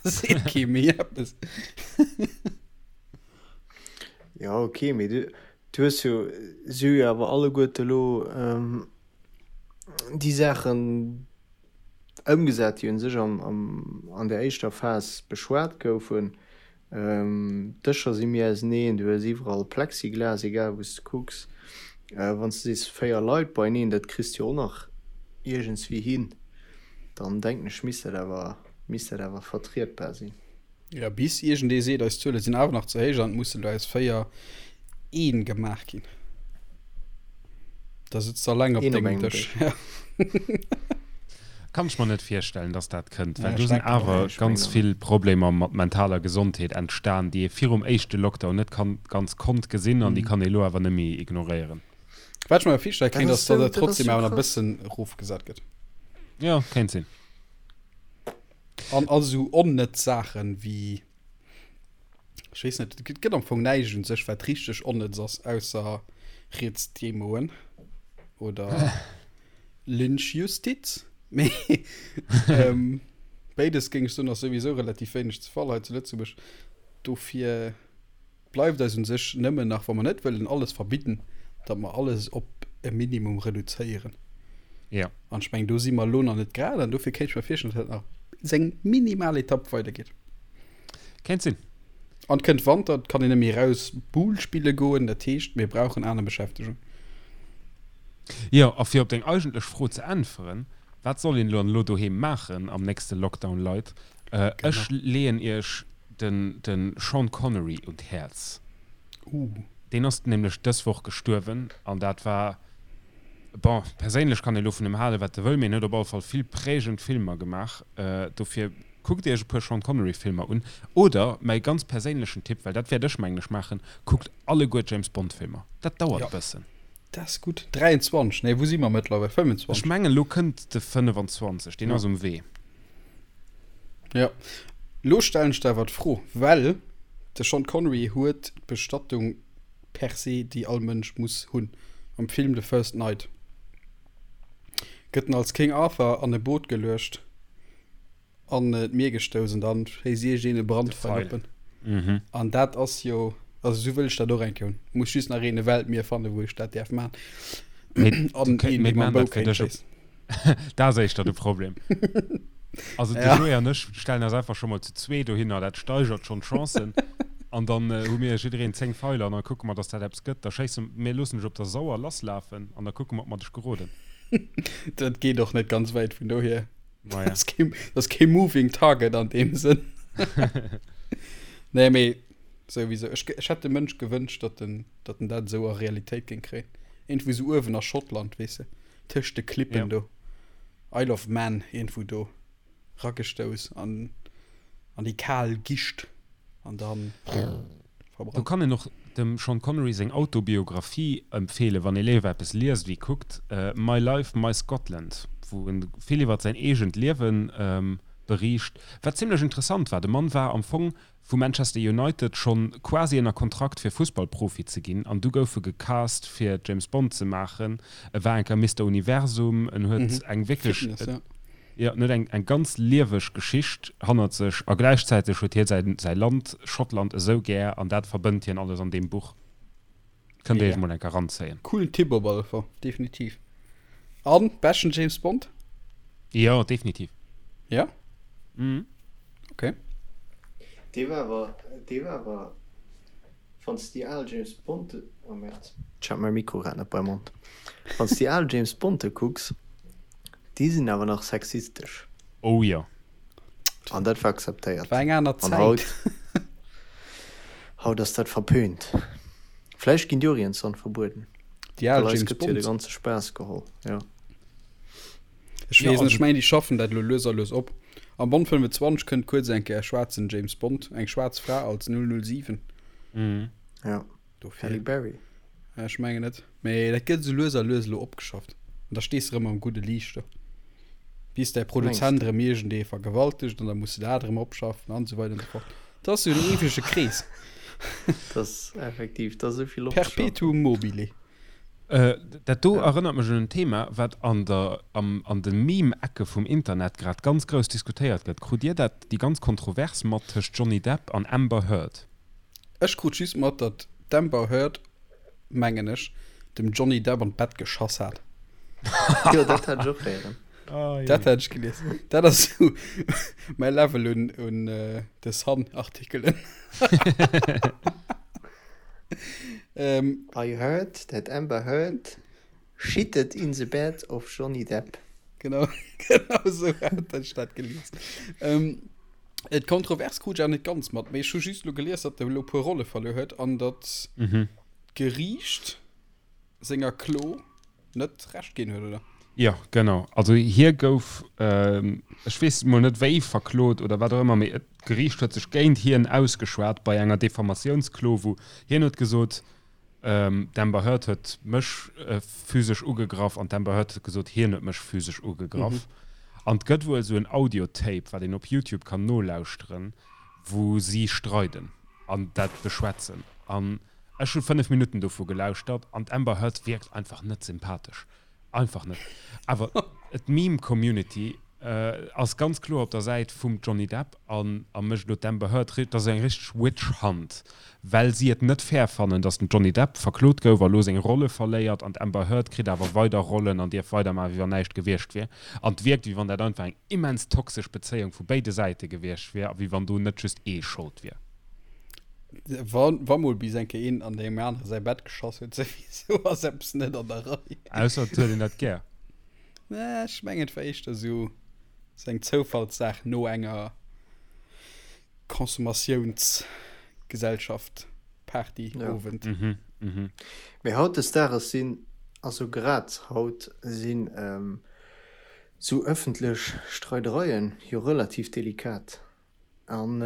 seet kee méi eppes. Jo, ok, mee du, du hues jo, si hu jo awer alleguerte elo déi Saachen ëmgesat, déi un sech am, am, an der éischter Phas beschwat goufen. D'Dëscher si méi auseneen, du hues iwwerall Plexiglas, egal wou s de kucks. Wann s de sees 4 Leit beieneen, dat kriss de jo och nach iergendswéi hin, dann denken ech misst dat awer, misst dat awer vertrietbar sinn. Jo, bis iergendee seet, eis Zuele sinn awer nach ze héich an et mussen elo aus 4 een gemaach ginn. Da sëtz de alleng op Een op dengem engem Dësch. Dësch. Kann ech mer net virstellen, dass dat kënnt, well Ja, do ech sinn denken och. awer Nee, ech ganz mengen och vill net. Problemer mat mentaler Gesondheet entstan, déi ee virum éischte Lockdown net kann, ganz konnt gesinn an déi kann ee elo awer net méi ignoréieren. Wat ech mer awer virstelle Dat kéint, ass ass, datt sou, et dat ass trotzdem sou awer nach e krass. bëssen erofgesat gëtt. Jo, kéint sinn. An all esou onnëtz Saachen wéi, ech weess net, et gëtt am Fong näischt un sech, wat richteg onnëtz ass, ausser Rietsdemoen oder Lynchjustiz. Mee ähm, béides géing ech soen, ass souwisou relativ wéineg ze Fall hei zu Lëtzebuerg. Dofir. Bleift eis un sech nëmmen nach, wa mer net wëllen alles verbidden, datt mer alles op e Minimum reduzéieren. Jo. An ech mengen, do si mer elo nach net grad an dofir kéint ech mer virstellen, datt dat nach seng minimal Etapp weidergeet. Kéint sinn. An et kënnt Wanter, et kann een net méi eraus Boule spille goen, dat heescht, mir brauchen aner Beschäftegung. Jo, a fir op deng eigentlech Fro ze äntweren, Wat soll een elo an elo doheem maachen am nächste Lockdown, Leit? Ech leeën iech den de Sean Connery un d'Häerz. Deen ass nämlech dës Woch gestuerwen an dat war, bon, perséinlech kann ee lo vun em halen, wat e wëll, mee en huet op alle Fall vill prägend Filmer gemaach. Dofir kuckt iech e puer Sean Connery Filmer un. Oder mäi ganz perséinlechen Tipp, well dat wäert ech mengen ech maachen, kuckt alleguer d'James Bond Filmer. Dat dauert e bëssen. Dat ass gutt. 23, nee, wou si mer mëttlerweil? 25? Ech mengen elo kënnt de 25, deen ass um Wee. Jo. Lo stellen ech der awer d'Fro, well de Sean Connery huet d'Bestattung per se, déi all Mënsch muss hunn. Am Film The First Knight gëtt en als King Arthur an e Boot geluecht an d'Mier gestouss an dann schéisst iergendeen e Brandfeil op en. An dat ass jo, also esou wëll ech dat och eng Kéier hunn. Muss just nach een e Weltmier fannen, wou ech dat däerf maachen. An een, dee mam Bou kéint schéissen. Dat ass éischter de Problem. Also de Joé an ech stellen eis einfach scho mol zu zwee dohinner, dat steigert schonn d'Chancen. An dann hu mir jiddereen 10 Feiler an da kucke mer, dass dat eppes gëtt. Da schéisse mir, loossen dech op der Sauer lasslafen an da kucke mer, ob mer dech geroden. Dat geet och net ganz wäit vun dohier. Maja. Dat ass kee, dat ass kee moving target an deem Sënn. Nee, mee souwisou. Ech, ech hätt dem Mënsch gewënscht, datt en, datt en dat esou a Realitéit géing kréien. Iergendwou esou uewen a Schottland, weess de. Tëscht de Klippen Ja. do. Isle of Man, iergendwou do. Ragestouss an, an déi kal Gischt an dann Do verbrannt. kann een och dem Sean Connery seng Autobiographie empfeelen, wann ee léiwer eppes liest wéi kuckt, My Life, My Scotland, wou en vill iwwert säin eegent Liewen beriicht, wat zimlech interessant war. De Mann war am Fong vu Manchester United schonn quasi ënner Kontrakt fir Fussballprofi ze ginn an du gouf e gecast fir James Bond ze maachen. E war eng Kéier Mister Universum, en huet eng wierklech, Fitness, ja. jo, en huet eng eng ganz lieweg Geschicht hannert sech a gläichzäiteg huet hie säi säi Land Schottland esou gär an dat verbënnt hien alles an deem Buch. Kënnt Dir Mega. iech mol eng Kéier eranzéien. Coolen Tipp op alle Fall, definitiv. An beschten James Bond? Jo, definitiv. Ja? Mhm. Okay. Dee war awer, dee war awer, wann s de déi al James Bond, oh Merde, ech hat mäi Mikro grad net beim Mond, wann s de déi al James Bonde kucks, déi sinn awer nach sexistesch. Oh jo. An dat war akzeptéiert. War eng aner An Zäit. haut, haut ass dat verpönt. Vläicht ginn déi och iergendwann verbueden. Déi al Well eis James gëtt jo de Bonds. ganze Spaass geholl, jo. Ech Ja, weess net, also ech mengen déi schaffen dat elo lues a lues op. Am Bond 25 kënnt kuerz eng Kéier e schwaarzen James Bond, eng schwaarz Fra als 007. Mhm. Ja, Dofir. Halle Berry. Ech mengen net. Mee dat gëtt esou lues a lues elo opgeschafft. An da stees de erëm am gudde Liicht do. Bis däi Produzent erëm iergendee vergewaltegt an da muss de dat erëm opschaffen an esou weider an esou fort. Dat ass esou en eewege Krees. Dat ass effektiv, dat ass esou vill opzeschaffen. Perpetuum mobile. Dat do erënnert mech un en Thema, wat an der, am, an de Meme-Ecke vum Internet grad ganz grouss diskutéiert gëtt. Krut Dir dat, déi ganz Kontrovers mat tëscht Johnny Depp an Amber Heard? Ech krut just mat, datt d'Amber Heard, mengen ech, dem Johnny Depp an d'Bett geschass hat. Jo, dat hat ech och héieren. Dat hat ech gelies. Dat ass sou mäi Level un, un The Sun-Artikelen. Ähm, I heard that Amber Heard shitted in the bed of Johnny Depp. Genau, genau sou hat ech dat gelies. Ähm, et Kontrovers krut ech awer net ganz mat, mee ech hu just elo gelies, datt e elo e puer Rolle verluer huet an datt d'Geriicht senger Klo net Recht ginn huet, oder? Jo, genau. Also hie gouf, ech weess mol net wéi verklot oder wat och ëmmer, mee d'Geriicht huet sech géint hien ausgeschwat bei enger Diffamatiounsklo, wou hien huet gesot, d'Amber Heard huet mech physesch ugegraff an d'Amber Heard huet gesot, hien huet mech physesch ugegraff. An et gëtt wuel esou en Audiotape, wat een op Youtube kann nolauschteren, wou si streiden an dat beschwätzen. An Ech hu 5 Minutten dovu gelauschtert an d'Amber Heard wierkt einfach net sympathesch. Einfach net. Awer d'Meme-Community ass ganz kloer op der Säit vum Johnny Depp an a mécht elo d'Amber Heard, dat ass eng richteg Witch Hunt, well si et net fair fannen, datt den Johnny Depp verklot gouf a lo seng Rolle verléiert an d'Amber Heard kritt awer weider Rollen an dierf weidermaachen, wéi wann näischt gewiescht wier. An et wierkt, wéi wann dat einfach eng immens toxesch Bezéiung vu béide Säite gewiescht wier a wéi wann do net just ee Schold wier. Wa, wa mol bis eng Kéier een an deem anere säi Bett geschoss huet, souwisou ass eppes net an der Rei. Ausser et huet een dat gär. Nee, ech mengen, et war éischter esou, esou eng Zoufallssaach no enger Consommatiounsgesellschaft, Party, Ja. Owend. Mhm, mhm. Mee hautdesdaags sinn, also grad haut sinn esou ëffentlech Streidereien jo relativ delikat. An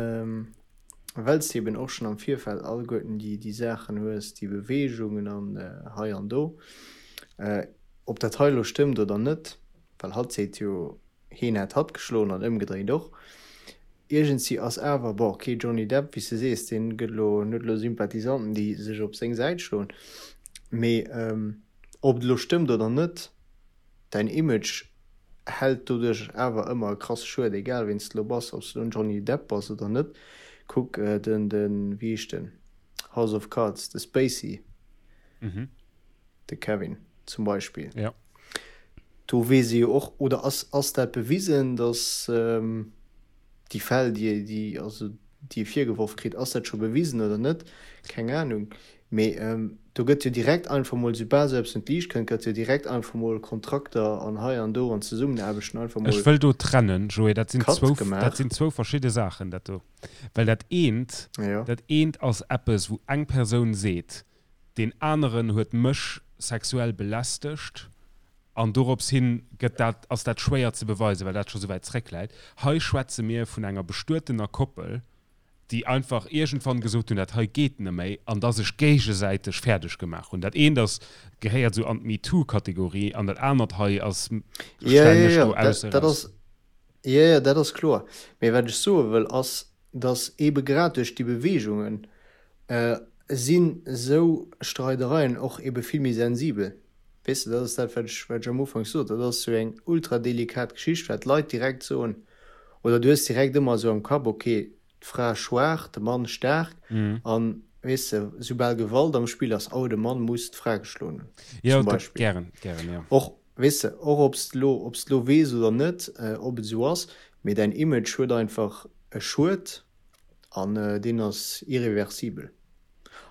well s de eben och schonn am Virfeld alleguerten déi, déi Saachen hues, déi Beweegungen an hei an do, ob dat hei elo stëmmt oder net, well hatt seet jo, heen hätt hatt geschloen an ëmgedréint och. Iergendsi ass awer, bon, ok, Johnny Depp, wéi s de sees, dee gëtt elo, en huet elo Sympathisanten, déi sech op seng Säit schloen, mee ob et elo stëmmt oder net, Däin Image hält doduerch awer ëmmer e krasse Schued, egal ween s de lo bass, ob s de lo en Johnny Depp bass oder net. Kuck den, den, wéi heescht den, House of Cards, de Spacey, de Kevin zum Beispill. Ja. Do weess ee jo och, oder ass, ass dat bewisen, datt déi Fäll, déi, déi, also déi e virgeworf kritt, ass dat scho bewisen oder net? Keng Anung. Mee do gëtt jo direkt einfach mol, soubal esou eppes un d'Liicht kënnt, gëtt jo direkt einfach mol Kontrakter an hei an do an Zesummenaarbechten einfach mol Ech wëll do trennen, Joé, dat sinn Cut zwou, gemaach. dat sinn zwou verschidde Saachen, dat do. Well dat eent, Jo. dat eent ass eppes, wou eng Persoun seet, deen aneren huet mech sexuell belästegt an dorops hin gëtt dat, ass dat schwéier ze beweisen, well dat scho souwäit zréckläit. Hei schwätze mir vun enger bestuetener Koppel, déi einfach iergendwann gesot hunn, dat hei geet neméi, an da sech géigesäiteg fäerdeg gemaach hunn. Dat eent ass, gehéiert esou an d'MeToo-Kategorie an dat anert hei ass, Ja, stellen ja, ech ja, do dat, ausse dat raus. ass, ja, ja, dat ass kloer. Mee wat ech soe wëll, ass, dass eebe grad duerch déi Beweegungen sinn esou Streidereien och eebe vill méi sensibel. Weess de, dat ass dat, wat ech, wat ech am Ufank sot, dat ass esou eng ultra delikat Geschicht, wat d'Leit direkt soen, oder du hues direkt ëmmer esou am Kapp, okay, d'Fra schwaach, de Mann staark, an, weess de, soubal Gewalt am Spill ass, oh, de Mann muss d'Fra geschloen hunn, Jo, zum dat, Beispill. gären, gären, jo. Och, weess de, och ob s de elo, ob s de elo weess oder net, ob et esou ass, mee däin Image huet einfach e Schued an deen ass irreversibel.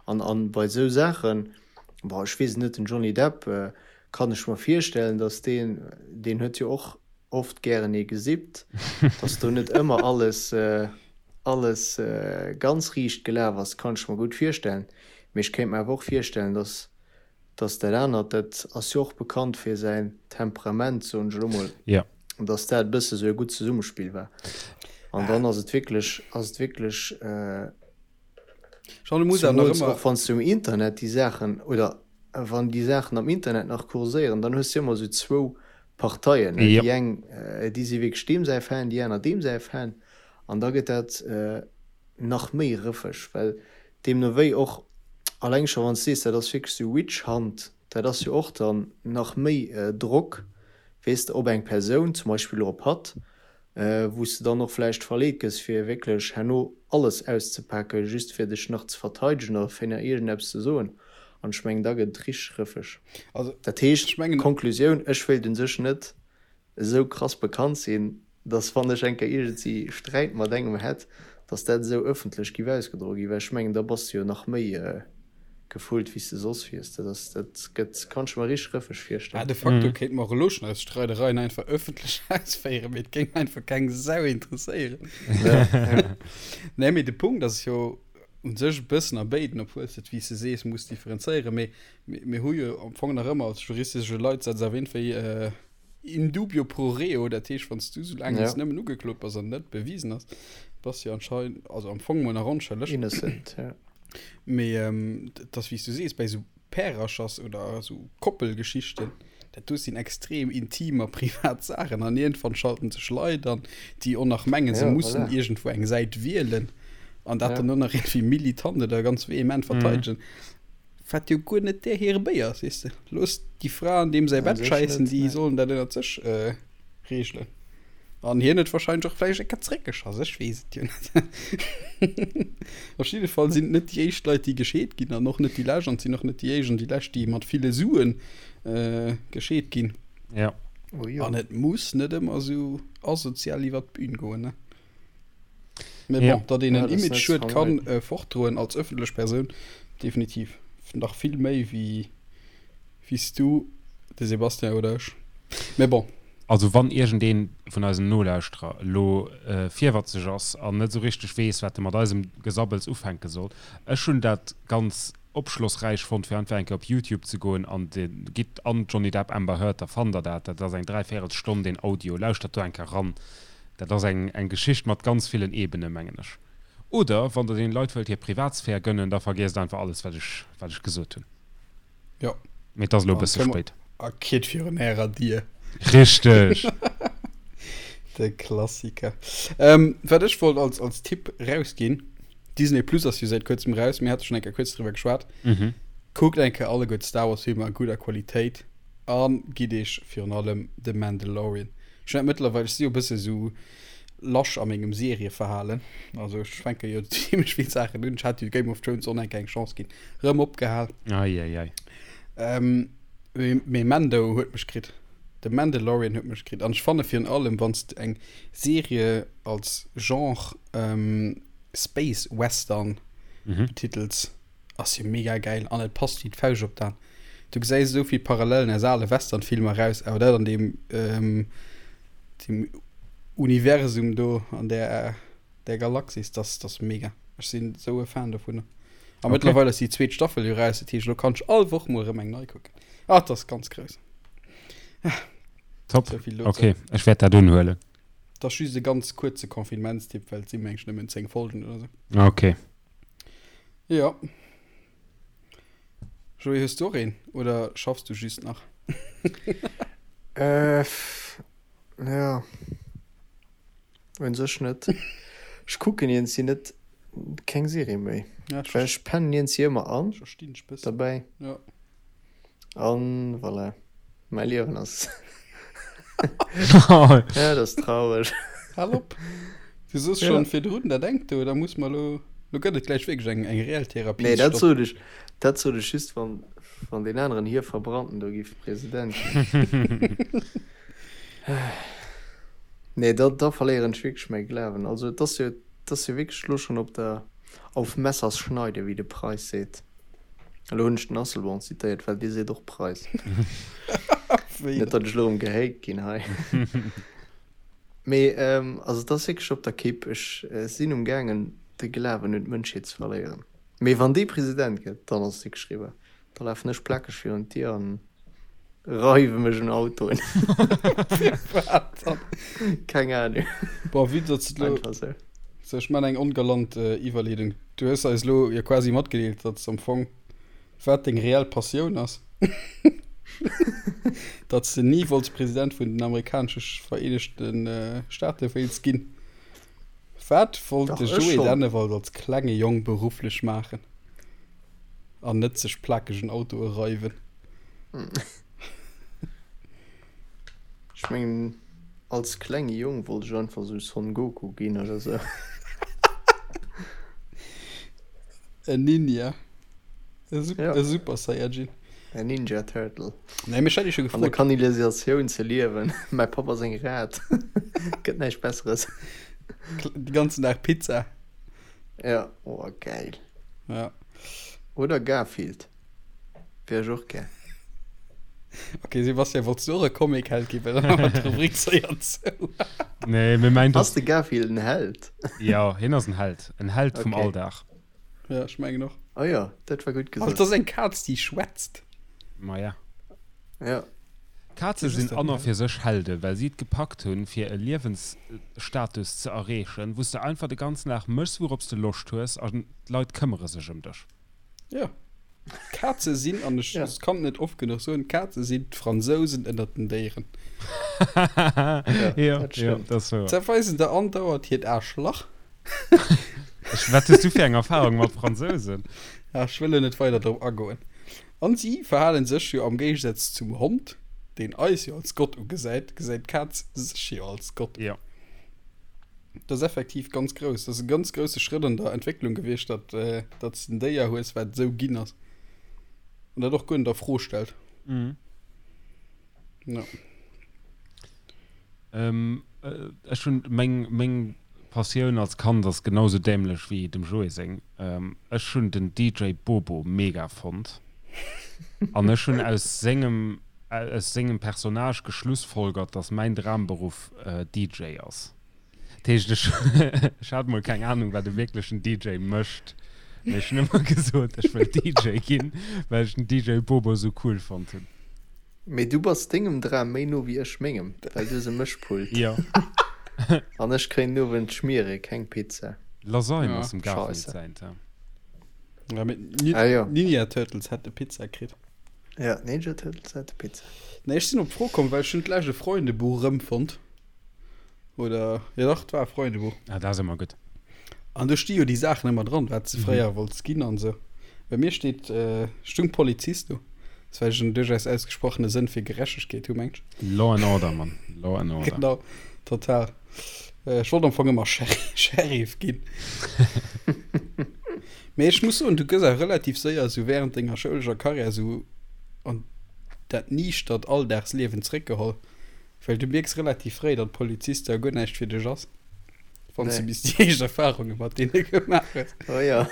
An an bei esou Saachen, bon ech weess et net, den Johnny Depp kann ech mer virstellen, datt deen, deen huet jo och oft gären ee gesippt, datt do net ëmmer alles alles ganz riicht gelaf ass, kann ech mer gutt virstellen. Mee ech kéint mer awer och virstellen, datt datt dat anert, dat ass jo och bekannt fir säin Temperament, soen ech elo mol, datt dat e bësse sou e gutt Zesummespill war. An dann ass et wierklech, ass et wierklech. Jean, du muss awer nach Zumools ëmmer. och wann s du um Internet déi Saachen, oder. wann déi Saachen am Internet nach kurséieren, dann hues de jo ëmmer esou zwou Parteien, ne? Déi eng, déi si wierklech deem säi Fan, déi aner deem säi Fan. An da gëtt dat nach méi rëffeg, well deemno wéi och, alleng scho wann s de sees, dat ass wierklech esou Witch Hunt, dat ass jo och dann nach méi Drock, weess de, op eng Persoun, zum Beispill och op hatt, wou s de dann och vläicht verleet gëss, fir wierklech herno alles auszepaken, just fir dech nach ze verteidegen oder fir nach iergendeppes ze soen. An ech mengen, da gëtt et richteg rëffeg. Also, Dat heescht, ech mengen. Konklusioun, Ech wéilt un sech net esou krass bekannt sinn, dass wann ech eng Kéier iergendsi Sträit mat engem hätt, dass dat esou ëffentlech giff ausgedroe ginn, well ech mengen, da bass de jo nach méi gefullt wéi s de soss wiers. Dat ass, dat gëtt, kann ech mer richteg rëffeg Ah, virstellen. de facto kéinte mer och elo schonn eis Streidereien einfach ëffentlech ausféieren, mee et géing einfach keng Sau interesséieren. Ja, ja. Nee, mee de Punkt ass jo u sech e bëssen a béiden, obwuel s de et, wéi s de sees, muss differenzéieren, mee mir hu jo am Fong nach ëmmer als juristesche Leitsatz erwähnt, wéi in dubio pro reo, dat heescht, wann s du soulaang s Ja. nëmmen ugeklot bass an net bewisen ass, bass du jo anscheinend, also am Fong mol nach onschëlleg. Innocent, ja. Mee et ass wéi s du sees, bei esou Pärerchers oder esou Koppelgeschichten, dat do sinn extrem intim a privat Saachen an iergendwann schalten sech Leit an, déi och nach mengen, se Ja, mussen voilà. iergendwou eng Säit wielen an dat Ja. dann och nach iergendwéi militant oder ganz vehement verteidegen, wat jo guer net där hire Béier ass, weess de. Looss déi Fra an deem säi An Bett sech schäissen, net, déi nee. sollen dat ënnert sech regelen. An hien huet wahrscheinlech och vläicht eng Kéier zréckgeschoss, ech weess et jo net. Op jidde Fall sinn et net déi éischt Leit, déi gescheet ginn an och net déi lescht an et sinn och net déi éischt an déi lescht, déi mat ville Sue gescheet ginn. Ja. Oh jo. An et muss net ëmmer esou asozial iwwer d'Bün goen, ne? Mee Ja. bon, datt een Ja, en dat ass net Image-Schued ze kann vermeiden. fortdroen als ëffentlech Persoun, definitiv. Nach vill méi wéi wéi s du, de Sébastien oder ech. Mee bon. Also wann iergendeen vun eisen Nolauschterer elo virwatzeg ass an net esou richteg weess, wat e mat eisem Gesabbels ufänke soll, ech hunn dat ganz opschlossräich fonnt, fir einfach eng Kéier op Youtube ze goen an de gitt an Johnny Depp Amber Heard, da fannt der dat. Dat ass eng Dräivéierelstonn deen Audio, lauschtert do eng Kéier ran. Dat ass eng eng Geschicht mat ganz villen Ebenen, mengen ech. Oder wann der deene Leit wëllt hir Privatsphär gënnen, da vergiesst einfach alles wat ech wat ech gesot hunn. Jo. Mee et ass elo e bësse spéit. A kritt virun ärer Dier. Richteg! De Klassiker. Ähm, wat ech wollt als, als Tipp rausginn, Disney Plus ass jo säit kuerzem raus, mir hate schonn eng Kéier kuerz driwwer geschwat. Mhm. Kuckt eng Kéier alleguer d'Star Wars Filmer a gudder Qualitéit a gitt iech virun allem The Mandalorian. Ech hunn dat mëttlerweil, ech si jo e bësse sou lasch a mengem Serieverhalen, also ech fänke jo zimmlech vill Saachen un. Ech hat jo Game of Thrones och nach eng Kéier eng Chance ginn, rëm opgehal. Ei, ei, ei. Ähm, mee, mee Mando huet mech kritt. The Mandalorian huet mech kritt. An ech fanne virun allem, wann s de eng Serie als Genre ähm, Space Western Mhm. betitels, Ass jo mega gäil an et passt wéi d'Fauscht op d'An. Du gesäis esou vill Parallelen aus ale Westernfilmer raus, awer dat an deem deem Universum do an där där Galaxis, dat ass mega. Ech sinn esou e Fan dovunner. A Okay. mëttlerweil ass déi zweet Staffel jo raus, dat heescht elo kann ech all Woch mol erëm eng nei kucken. Ah, dat ass ganz grouss. Top. Esou vill dozou. Okay, ech wäert dat unhuelen. Dat ass just e ganz kuerze Confinementstipp, well et sinn mengen ech nëmmen 10 Folgen oder sou. Okay. Jo. Joé, hues du och een oder schaffs du just nach? Äh, ja. Un sech net. Ech kucken iergendsi net keng Serie méi. Ja, ech Well ech pennen iergendsi ëmmer an verstinn dech bëssen. derbäi. Ja. An voilà. Mäi Liewen ass. Ja, dat ass traureg. Hal op. Du soos Ja. schonn virdrun, dat engt do, da muss mer elo, lo gëtt et gläich wierklech eng, eng reell Therapie. Nee, dat sot ech, dat sot ech just, wann, wann deen aneren hir Verbrannten do giff President ginn. Nee, da, da verléieren ech wierklech mäi Glawen. Also, et ass jo, et ass jo wierklech elo schonn op der, auf Messers Schneide, wéi de Preis seet. Elo hunn ech den Asselborn zitéiert, well dee seet och Preis. Net, datt ech elo erëm gehate ginn hei. Mee also et ass wierklech op der Kipp. Ech sinn um gaangen de Glawen un d'Mënschheet ze verléieren. Mee wann dee President gëtt, dann ass et wierklech eriwwer. Da lafen ech plakeg virun d'Dier an reiwe mech un Autoen. Firwat dann? Keng Ahnung. Bon, vue datt s de elo. Einfach esou. So, ech man eng ongalant Iwwerleedung. Du hues eis elo jo quasi matgedeelt, datt s am Fong, wat deng reell Passioun ass. Datt s de ni wollts President vun den amerikanesche Vereenegte Staate wéilts ginn. Wat wollt Dach, de ech Joé schonn. Dennewald als klenge Jong berufflech maachen? An net sech plakegen Autoe reiwen. Ech mengen, als klenge Jong wollt ech einfach sou Son Goku ginn oder sou. En Ninja. E Ja. e Super Saiyajin. En Ninja Turtle. Nee, mee ech hat iech jo An der gefrot. Kanalisatioun ze liewen. Mäi Papp ass eng Rat. Gëtt näischt Besseres. De ganzen Dag Pizza. Ja, oh geil. Ja. Oder Garfield. Wär ech och gär. Ok, Sebastian, wollts du och e Comic-Held ginn? Well dann hu mer d'Rubrik séier zou. Nee, mir mengt Ass de Garfield en Held? Jo, hien ass en Held. En Held vum Okay. Alldag. Ja, ech mengen och. Oh jo, dat war gutt Also, gesot. dat ass eng Kaz, déi schwätzt. Ma ja. Ja. Kaze sinn an a fir sech Helde, well si et gepackt hunn, fir e Liewensstatus ze erreechen, wou s de einfach de ganzen Dag méchs, wourops de Loscht hues, an d'Leit këmmere sech ëm dech. Jo. Kaze sinn, an ech Ja. kann et net oft genuch soen, Kaze sinn d'Fransousen ënnert den Déieren. Ja, Jo, dat jo, stëmmt. dat ass wouer. Se weisen der andauernd hiert Aarschlach. Ech, wat hues du fir eng Erfahrung mat Fransousen? Ja, ech wëll lo net weider drop agoen. An si verhalen sech jo am Géigesaz zum Hond, deen eis jo als Gott ugesäit, gesäit d'Kaz sech jo als Gott. Jo. Dat ass effektiv ganz grouss. Dat ass e ganz grousse Schrëtt an der Entwécklung gewiescht, datt datt s de en Déier hues, wat esou ginn ass. An dat och guer net a Fro stellt. Mhm. Ja. Ähm, ech hunn meng meng Passioun als Kand ass genau sou dämlech wéi dem Joé seng. Ähm, ech hunn den DJ Bobo mega fonnt an ech hunn aus sengem aus sengem Personnage geschlussfolgert, dass mäin Dramberuff DJ ass. Dat heescht, ech ech hat mol keng Ahnung, wat e wierklechen DJ mécht, mee ech hunn ëmmer gesot, ech wëll DJ ginn, well ech den DJ Bobo sou cool fonnt hunn. Mee du bass dengem Dram méi no wéi ech mengem, well du hues e Mëschpult. Jo. An ech kréien den Owend Schmiere, keng Pizza. Lasagne Ja. ass dem Garfield Scheisse. säint, ja. Ja, mee d'Ni- Ah, jo. Ninja Turtles hätte Pizza kritt. Ja, d'Ninja Turtles hätte Pizza. Nee, ech sinn op d'Fro komm, well ech hunn d'lescht e Freundebuch erëmfonnt. Oder, jo dach, et war e Freundebuch. Ah, dat ass ëmmer gutt. An do sti jo déi Saachen ëmmer dran, wat s de fréier wollts ginn an esou. Bei mir steet, stung Polizist do. Dat well ech en duerchaus ausgesprochene Sënn fir Gerechtegkeet hu, mengt ech. Law and Order, Mann. Law and Order. Genau, total. Ech wollt am Fong ëmmer Sheriff ginn. Mee ech muss soen, du gëss awer relativ séier esou während denger schoulescher Karriär esou an dat niichtert Alldagsliewen zréckgeholl. Well du mierks relativ fréi, datt Poliziste jo guer näischt fir dech ass, wann s du Nee. bis déi éischt Erfarunge mat deene gemaach hues. Oh ja.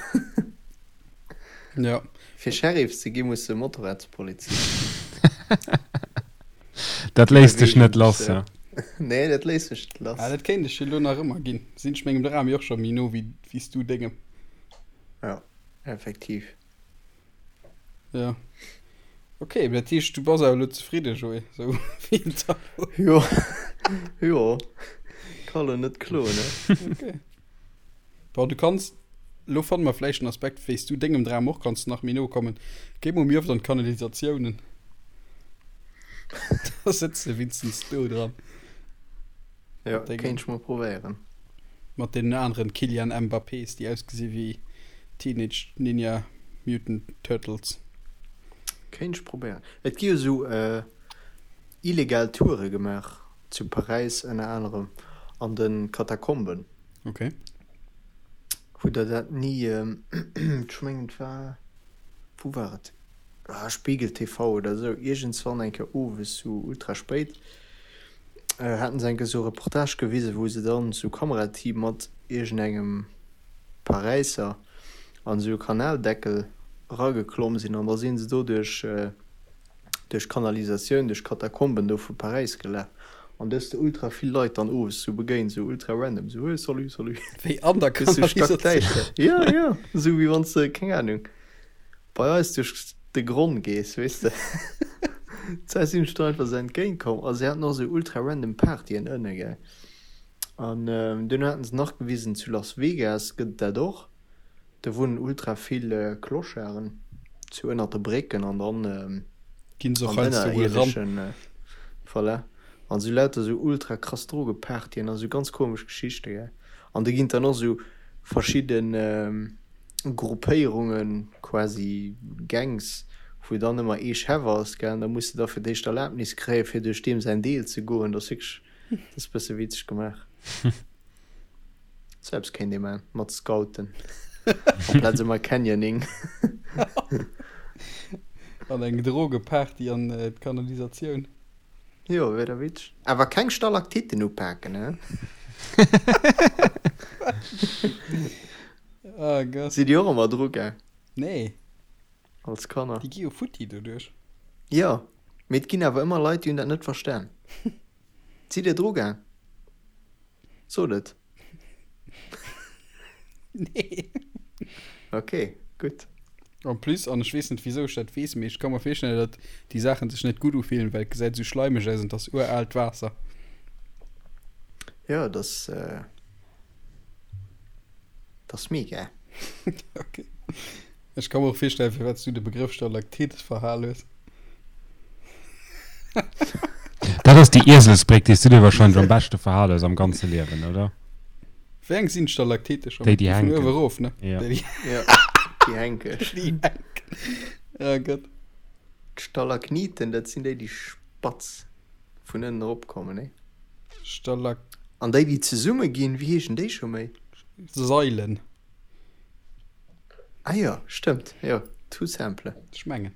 Ja. Fir Sheriff ze gi muss de Motorradspolizist sinn. Dat léisst dech net lass, ja. Nee, dat léisst mech net lass. Ah, dat kéint ech jo elo nach ëmmer ginn. Sinn ech mengem Dram jo och scho méi no wéi wéi s du dengem. Ja, effektiv. Ja. Ok, mee dat heescht, du bass awer elo zefridde, Joé, sou wéi et da elo. Jo, jo, ka lo net kloen, ne? Ok. Bon, du kanns, elo fanne mer vläicht en Aspekt, wéi s du dengem Dram och kanns nach méi no kommen. Géi mol méi oft an d'Kanalisatiounen. Da sëtz de wéinstens do dran. Jo, Mat dengem. kéint ech mol probéieren. Mat deenen aneren Kylian Mbappés, déi ausgesi wéi Teenage Ninja Mutant Turtles. Kéint ech probéieren. Et gi jo sou illegal Toure gemaach zu Paräis ënner anerem an de Katakomben. Ok. Hutt der dat ni, ech mengen et war, wou war et, ah Spiegel TV oder sou, iergendswann eng Kéier owes sou ultra spéit, haten se eng Kéier sou e Reportage gewisen, wou se dann sou Kamerateam mat iergendengem Paräisser an esou e Kanaldeckel erageklomm sinn an da sinn se do duerch duerch d'Kanalisatioun, duerch d'Katakomben do vu Paräis gelaf an do hues de ultra vill Leit dann owes sou begéint, sou ultra random, sou hey salut salut. Wéi an der Bis sou Kanalisatioun? stackdäischter. Jo, jo, sou wéi wann s de, keng Ahnung, bei eis duerch de Gronn gees, weess de. D'Zäit sinn ech do einfach sou entgéint komm a se haten och sou ultra random Partyen ënne, gell. An duerno haten se nach gewisen, zu Las Vegas gëtt et dat och. Do wunnen ultra vill Clocharden, sou ënnert de Brécken an dann. Ginn se och heiansdo wuel ran. Voilà. An sou lauter sou ultra krass Drogepartyen a sou ganz komesch Geschichte, gell. An do ginn dann och sou verschidden Gruppéierungen, quasi Gangs, wou dann ëmmer ee Chef ass, gell. An da muss de da fir d'éischt Erlaabnis kréien, fir duerch deem säin Deel ze goen. Dat ass wierklech, dat ass e bësse witzeg gemaach. Sou eppes kéint ee man mat Scouten amplaz ëmmer Canyoning. An eng Drogeparty an d'Kanalisatioun. Jo, wier da witzeg. Awer keng Stalaktiten upaken, he? Oh Gott. Sidd dir och ëmmer dru gaang? Nee. Als Kanner? Déi gi jo futti doduerch. Jo, mee et ginn awer ëmmer Leit, déi hunn dat net verstan. Sidd dir dru gaang? Sot et. Nee. Ok, gutt. En plus, an ech weess net wisou ech dat weess, mee ech ka mer virstellen, datt déi Saachen sech net gutt ufillen, well et gesäit esou schleimeg aus an et ass uraalt Waasser. Jo, et ass, et ass mega. Ok. Ech ka mer och virstellen, firwat s du de Begrëff Stalaktit verhal hues. Dat ass déi Ieselsbréck, déi s du dir wahrscheinlech am beschte verhal hues am ganze Liewen, oder? Wéi eng sinn d'Stalaktite scho? Déi, déi Vun hänken. uewe erof, ne? Ja. Déi, déi, Ja, déi hänken. déi hänken. Oh Gott. D'Stalakniten, dat sinn déi, déi spatz vun ënnen eropkommen, nee? Stalak. An déi, déi zesumme ginn, wéi heeschen déi scho méi? Sailen. Ah jo, stëmmt, jo, tout simple. Ech mengen.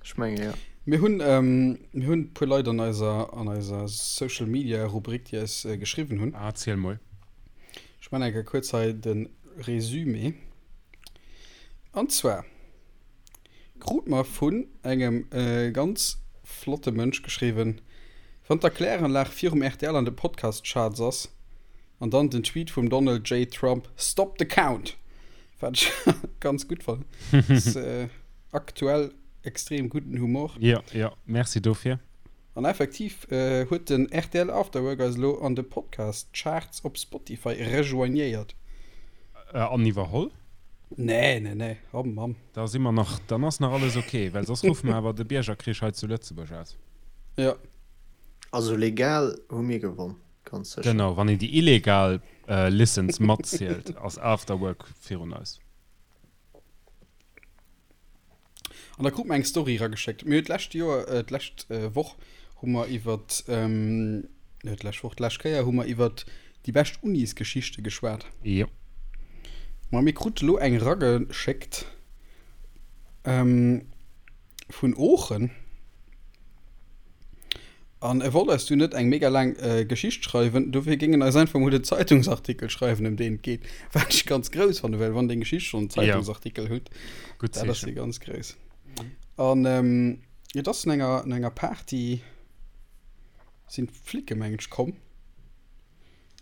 Ech mengen, jo. Mir hunn, ähm, mir hunn e puer Leit an eiser, an eiser Social Media Rubrik, déi eis äh, geschriwwen hunn. Ah, ziel mol. Ech man eng Kéier kuerz hei de Résumé. An zwar krut mer vun engem äh, ganz flotte Mënsch geschriwwen, Wann d'Erkläranlag virum rtl an de Podcast-Charts ass, An dann den Tweet vum Donald J. Trump, Stop the count! Wat ech ganz gutt fannen. Ass aktuell extrem gudden Humor. Jo, jo, merci dofir. An effektiv huet den rtl Afterwork eis elo an de Podcast Charts op Spotify rejoignéiert. An iwwerholl? Nee, nee, nee, oh Mamm. Da si mer nach, dann ass nach alles ok, well soss ruffe mer awer de Biergerkrich hei zu Lëtzebuerg aus. Jo. Also legal hu mir gewonn. Ganz sécher. Genau, wann een déi illegal Listens matzielt, ass Afterwork virun eis. An da krut mer eng Story erageschéckt. Mir hunn d'lescht Joer, d'lescht Woch hu mer iwwert, net d'lescht Woch, d'lescht Kéier hu mer iwwert déi bescht Unisgeschichte geschwat. Jo. Ma mir krute lo eng erageschéckt vun Oochen. An e wollt eis du net eng mega laang Geschicht schreiwen, dofir géing en eis einfach mol den Zeitungsartikel schreiwen, ëm deen et geet. Wat ech ganz grouss fannen, well wann deng Geschicht schonn en Zeitungsartikel huet, Gutt dat ass Zeechen. jo ganz grouss. An et ass no enger, no enger Party sinn d'Flicke mengen ech komm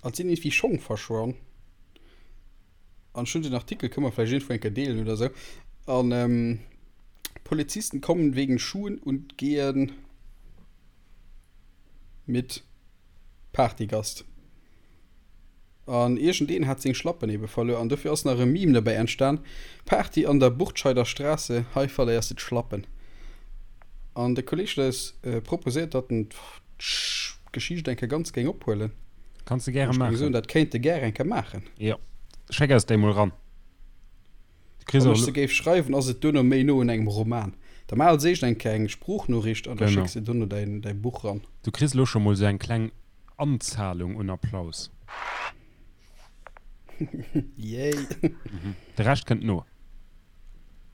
an et sinn iergendwéi Schong verschwonn. An ech hunn den Artikel, kënne mer vläicht iergendwou eng Kéier deelen oder sou. An Polizisten kommen wegen Schuhen und gehen mit Partygast. An iergendeen hat seng Schlappen ebe verluer an dofir ass nach e Meme dobäi entstan, Party an der Burtscheider Straße, hei verléiers de d'Schlappen. An de Kolleg huet eis proposéiert, datt en d'Geschicht eng Kéier ganz géing ophuelen. Kanns de gäre maachen. Ech géing soen, dat kéint e gär eng Kéier maachen. Jo, schéck eis déi mol ran. Du kriss Wann och ech se géif schreiwen, ass et duerno méi no un engem Roman. Da maach als éischt eng Kéier eng Sproochnoriicht an da Genau. schécks de duerno däin, däi Buch ran. Du kriss elo scho mol sou eng kleng Anzahlung un Applaus. Yay! De Rescht kënnt no.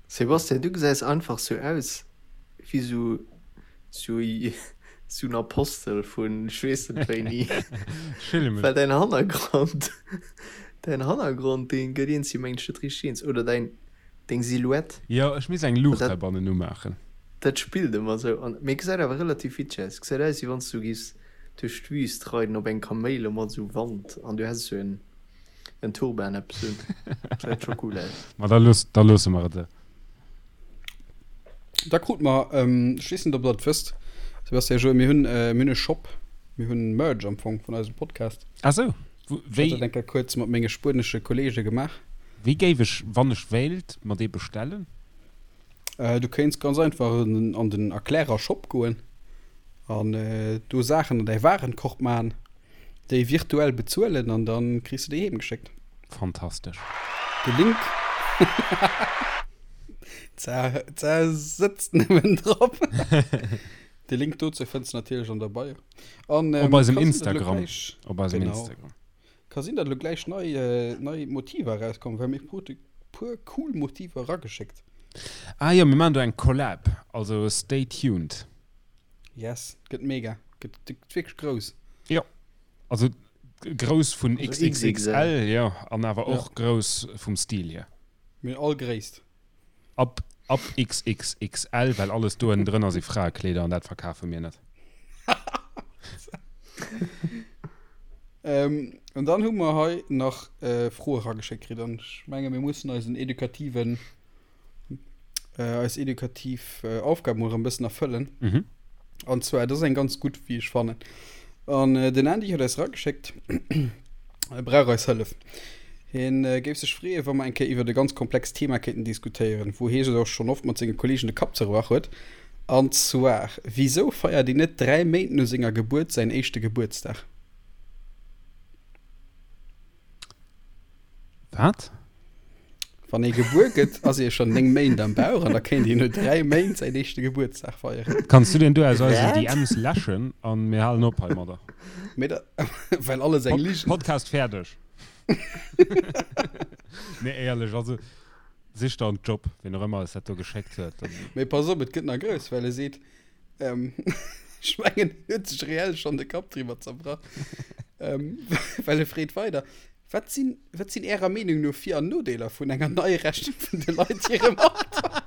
Sebastian, du gesäis einfach sou aus wéi sou sou sou en Apostel vun ech weess net wéini. Well däin Hannergrond, däin Hannergrond dee gëtt iergendwéi mengen ech net richteg eens oder däin deng Silhouette. Jo, ech misst eng Luucht heibannen umaachen. Dat spillt ëmmer sou an mee gesäit awer relativ witzeg aus. Gesäit aus wéi wann s du giffs duerch d'Wüst reiden op engem Kaméil a mat sou Wand an du häss sou en En Turban eppes un. Gesäit scho cool aus. Ma da looss, da loosse mer et. Da krut mer, ech weess net ob der et wësst, Sebastian, Joé, mir hunn, mir hunn e Shop, mir hunn Merch am Fong vun eisem Podcast. Ah sou, Wou, wéi? Ech hat dat eng Kéier kuerz mat menge spuenesche Kollege gemaach. Wéi géif ech, wann ech wéilt, mer dee bestellen? Du kéints ganz einfach an den Erklärer Shop goen an do Saachen an däi Warenkorb maachen, déi virtuell bezuelen an dann kriss de déi heem geschéckt. Fantastesch. De Link D'Sar sëtzt nëmmen drop. De Link dozou fënns de natierlech an der Bio. An, ähm, op eisem Instagram. Op eisem genau. Instagram. Ka sinn, datt elo gläich nei, äh, nei Motiver erauskommen, well mir krute puer cool Motiver erageschéckt. Ah jo, mir maachen do eng Collab, also stay tuned. Yes, gëtt mega, gëtt, gëtt wierklech grouss. Jo, also grouss vun also XXL, jo, an awer och ja. grouss vum Stil hier. Mir all Gréisst. Ab, ab XXXL, well alles do ënnendrënner si Fraekleeder an dat verkafe mir net. Ähm, an dann hu mer hei nach äh, Froe rageschéckt kritt an ech menge mir mussen eisen edukativen äh, eis edukativ äh, Aufgab mol erëm bëssen erfëllen. Mhm. An zwar, dat ass eng ganz gutt, wéi ech fannen. An äh, den Andy huet eis rageschéckt, e brauch eis Hëllef. Hien äh, géif sech freeën, wa mer eng Kéier iwwert e ganz komplext Thema kéinten diskutéieren, wou hie sech och schonn oft mat senge Kolleegen de Kapp zerbrach huet. An zwar, Wisou feiert een net 3 Méint no senger Gebuert säin éischte Gebuertsdag? Wat? Wann ee gebuer gëtt, ass ee schonn 9 Méint am Bauch an da kéint een no 3 Méint säin éischte Gebuertsdag feieren. Kanns du deen do aus eisen DMs läschen an mir halen op heimadder. Mee da, well alles eng Ligen. Podcast fäerdeg. Nee, éierlech, also sich der en Job, ween och ëmmer eis dat do geschéckt huet. Mee pass op, et gëtt nach grouss, well e seet, ähm, ech mengen, en huet sech reell schonn de Kapp driwwer zerbrach, ähm, well e freet weider, Wat sinn, wat sinn Ärer Meenung no Vir an Nodeeler vun enger Neirechnung vun de Leit hirem Alter?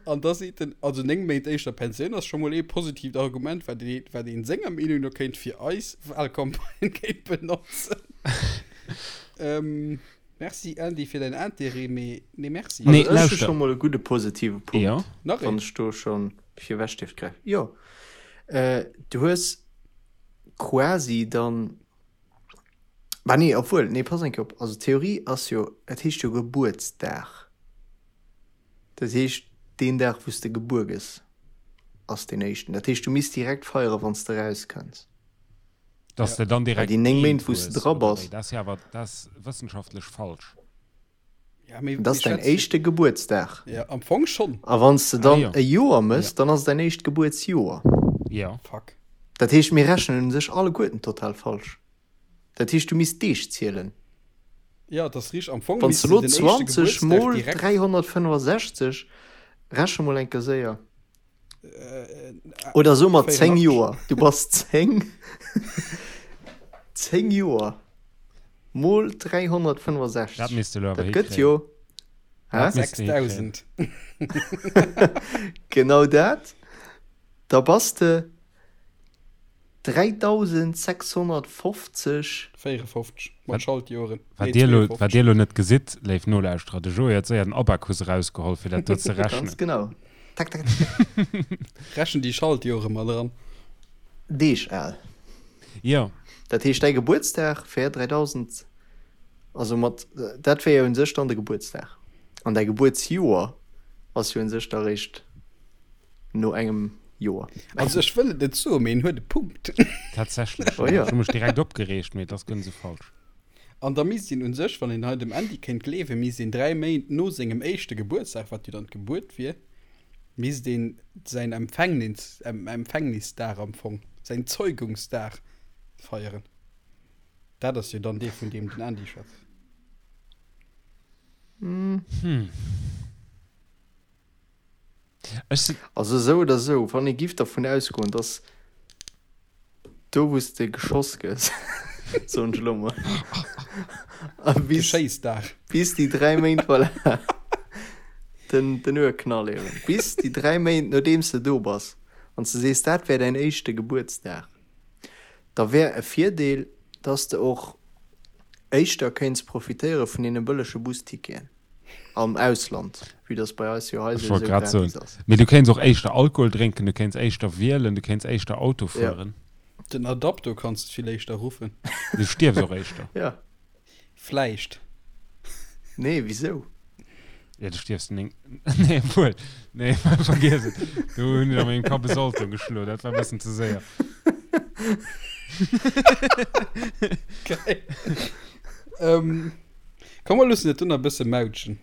An da seet en, also 9 Méint éischter Pensioun ass scho mol ee positiivt Argument, wat ee, wat een senger Meenung no kéint fir eis Wahlcampagne kéint benotzen. ähm, merci Andy fir däin Interêt, mee nee merci. Nee, Also ech hu lauschter. scho mol e gudde positive Punkt, Jo. Nach wann een? ech do scho virwech dierft gräifen. Jo, äh, du hues quasi dann, bah nee, obwuel, nee, pass eng Kéier op, also d'Theorie ass jo, et heescht jo Gebuertsdag, dat heescht deen Dag wou s de gebuer gëss ass deen éischten, dat heescht du misst direkt feiere wann s de erauskënns. Dass de dann Well direkt déi 9 Méint eent wou s de hues, dra oder bass. wéi? Dat ass jo awer, dat ass wëssenschaftlech falsch. Ja, mee Dat ass mir däin schwätzen. éischte Gebuertsdag. Ja, am Fong schonn. A wann s de Ah dann jo. e Joer mëss, Ja. dann ass et däin éischt Gebuertsjoer. Jo. Fuck. Dat heescht, mir rechnen u sech alleguerten total falsch. Dat heescht, du misst Deeg zielen. Ja, dat ass richteg. Am Fong Wann s misst de de elo den éischte 20 Gebuertsdag mol direkt. 365, reche mol eng Kéier séier. Äh, Oder so mat 10 84. Joer. Du bass 10. 10 Joer mol 365. Dat misst de elo awer Dat gëtt hikréien. jo. Hä? Dat misst de hikréien. 6000. Genau dat. Da bass de 3650. 54 mat Schaltjoren. Wat Nee, dir elo, wat 52. dir elo net gesitt, léif Nolauschterer, de Joé huet séier den Abakus erausgeholl, fir dat do ze Ganz rechnen. genau. Tak, tak, tak. Rechen déi Schaltjore mat eran. Deeg al. Jo. Dat heescht, däi Gebuertsdag wär 3000, also mat, dat wär jo un sech dann de Gebuertsdag. An däi Gebuertsjoer ass jo un sech da réischt no engem Joer. Also ech wëll et net soen, mee en huet e Punkt. Tatsächlech, Oh jo. Ech hu mech direkt opgereegt, mee et ass guer net esou falsch. An da misst een un sech, wann een hei dem Andy kéint gleewen, misst een 3 Méint no sengem éischte Gebuertsdag, wat jo dann d'Gebuert wier, misst een säin Empfängnis, Empfängnisdag am Fong, säin Zeugungsdag feieren. Dat ass jo dann dee vun deem den Andy schwätzt. Hm. Ech si. Also esou oder esou, wann ee giff dervun ausgoen, dass do wou s de geschoss gëss, soen ech elo mol, a bis, Geschéissdag. bis déi 3 Méint, voilà, den, den Urknall eben, bis déi 3 Méint nodeems de do bass, wann s de sees, dat wär däin éischte Gebuertsdag, da wär e Virdeel, dass de och éischter kéints profitéiere vun deene bëllege Busticketen. Am Ausland, vue dass bei eis jo hei Ech wollt souwisou grad soen. gratis ass. Mee du kéints och éischter Alkohol drénken, du kéints éischter wielen, du kéints éischter Auto Ja. fueren. Den Adapto kanns de vill éischter ruffen. Du stierfs och éischter. Ja. Vläicht. Nee, wisou? Ja, du stierfs 9. Nee, obwuel. Nee, vergiess et. Do hunn ech a mengem Kapp e Salto geschloen. Dat war e bëssen ze séier. Geil. ähm, komm, mer loossen et dunn e bësse mautschen.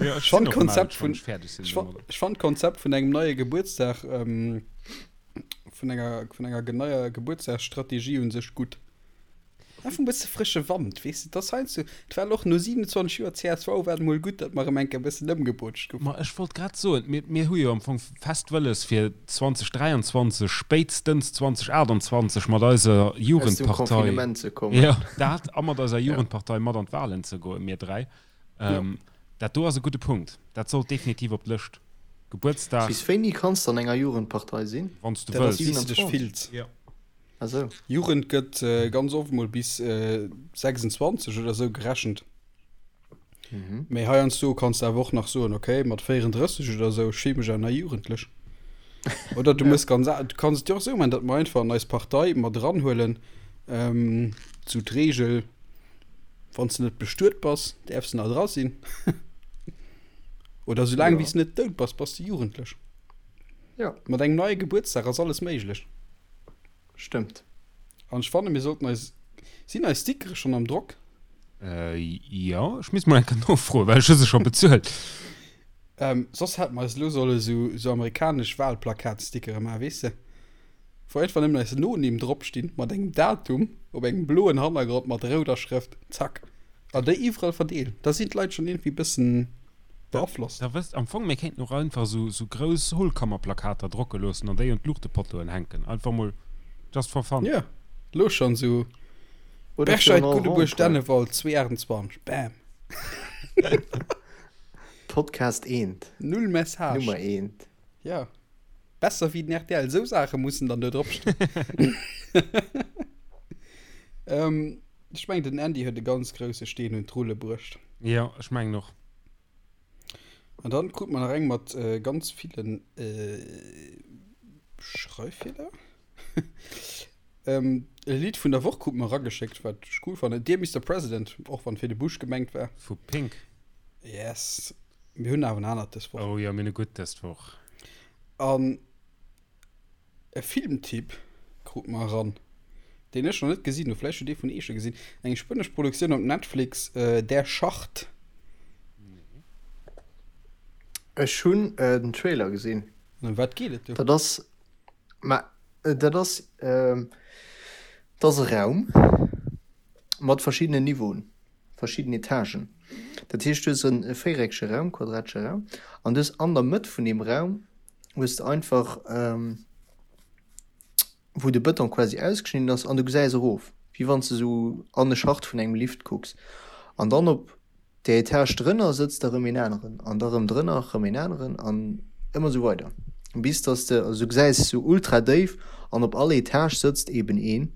Ja, ech Ech fand sinn och d'Konzept mautsch, wann vun, ech fäerdeg sinn ech fand, domadder. ech fand d'Konzept vun engem neie Gebuertsdag, ähm, vun enger, vun enger neier Gebuertsdagsstrategie un sech gutt. Einfach e bësse frësche Wand, weess de, dass heiansdo, et war och no 27 Joer csv, war et mol gutt, datt mer erëm eng Kéier e bëssen ëmgebootscht goufen. Ma ech wollt grad soen, mir, mir hu jo am Fong fest wëlles, fir 2023, spéitstens 2028 mat eiser Aus dem Jugendpartei, Confinement ze kommen. jo, dat, a mat eiser Jugendpartei mat an d'Wahlen ze goen, mir 3. Dat do ass e gudde Punkt. Dat sollt definitiv op d'Lëscht. Gebuertsdag. Bis wéini kanns de an enger Jugendpartei sinn? Wann s de Dat ass, wëlls. wéi s de dech 27? fills. Jo. Ah sou. Jugend gëtt ganz oft mol bis 26 oder sou gerechent. Mee heiansdo kanns de awer och nach soen, okay, mat 34 oder sou, ech fille mech awer nach jugendlech. Oder du mëss ganz, du kanns et jo och sou maachen, datt mer einfach an eis Partei mat eranhuelen, sou d'Reegel, wann s de net bestuet bass, däerfs de nach dra sinn. Oder soulaang wéi s de net dout bass, bass de jugendlech. Jo. Mat engem neie Gebuertsdag ass alles méiglech. Stëmmt. An ech fanne mir sollten eis, sinn eis Stickere schonn am Drock? Äh, jo, ech misst mol eng Kéier nofroen, well ech hu se scho bezuelt. Ähm, soss hätte mer eis elo solle sou, sou amerikanesch Wahlplakatstickere maachen, weess de? Wou einfach nëmmen eis Nonimm dropstinn, mat engem Datum, op engem bloen Hannergrond mat rouder Schrëft. Zack. An déi iwwerall verdeelen. Da sinn d'Leit schonn iergendwéi bëssen. Beaflosst. Da wësst, am Fong, mir kéinten och einfach esou, esou grouss Hohlkammerplakater drocke loossen an déi un d'Luuchtepottoen hänken. Einfach mol just for fun. Jo, lo schonn esou Oder fir Berscheid, en Guddebuerg, Rond-point. Dennewald, 228, bam. Podcast eent. Null Message. Nummer eent. Ja. Besser wéi den rtl. Esou Saache mussen dann do drop stoen. ähm, ech mengen, den Andy huet e ganz grousse Steen un d'Rulle bruecht. Jo, ech mengen och. An dann krut mer nach eng mat ganz villen Schreiffeeler. E Lidd vun der Woch krut mer erageschéckt, wat ech cool fannen. Dear Mister President, och wann fir de Bush gemengt war. Vu Pink. Yes. Mir hunn awer en anert dës Woch. Oh jo, mir hunn e gutt dës Woch. An E Filmtipp krut mer eran, deen ech nach net gesinn hunn, vläicht hutt ee vun eech e gesinn, eng spuenesch Produktioun op Netflix, Der Schacht. Ech hunn den Trailer gesinn. An ëm wat geet et do? Dat ass, ma dat ass, dat ass e Raum mat verschiddenen Niveauen. verschidden Etagen. Dat heescht, du hues e véiereckege Raum, quadratesche Raum, an du hues an der Mëtt vun deem Raum hues de einfach, wou de Bëton quasi ausgeschnidden ass, an du gesäis erof, wéi wann s de esou an e Schacht vun engem Lift kucks. An dann op där Etage drënner sëtzt da rëm een aneren, an da rëm drënner rëm een aneren, an ëmmer esou weider, bis dass de, also du gesäis esou ultra déif, an op all Etage sëtzt eben een,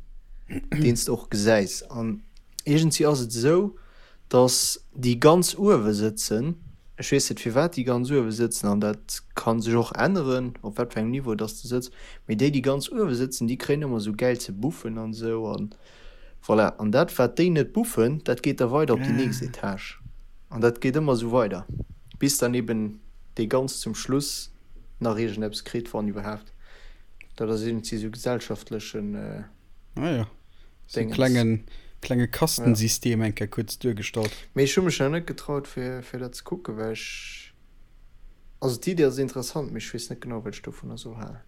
deen s de och gesäis. An Iergendwéi ass et esou, datt déi ganz uewe sëtzen, ech weess net firwat déi ganz uewe sëtzen an dat ka sech och änneren, op wat fir engem Niveau datt s de sëtz, mee déi, déi ganz uewe sëtzen, déi kréien ëmmer esou gäil ze buffen an esou an voilà. An dat wat déi net buffen, dat geet da weider op déi nächst Etage an dat geet ëmmer esou weider, bis dann eben dee ganz zum Schluss nach iergendeppes kritt, wann iwwerhaapt. Dat ass iergendwéi esou gesellschaftlechen. Ah ja. So en klengen, klenge Kastensystem eng Kéier kuerz duergestallt. Mee ech hu mech nach net getraut fir, fir dat ze kucken, well ech, also d'Idee ass interessant, mee ech weess net genau wat ech dovunner soll halen.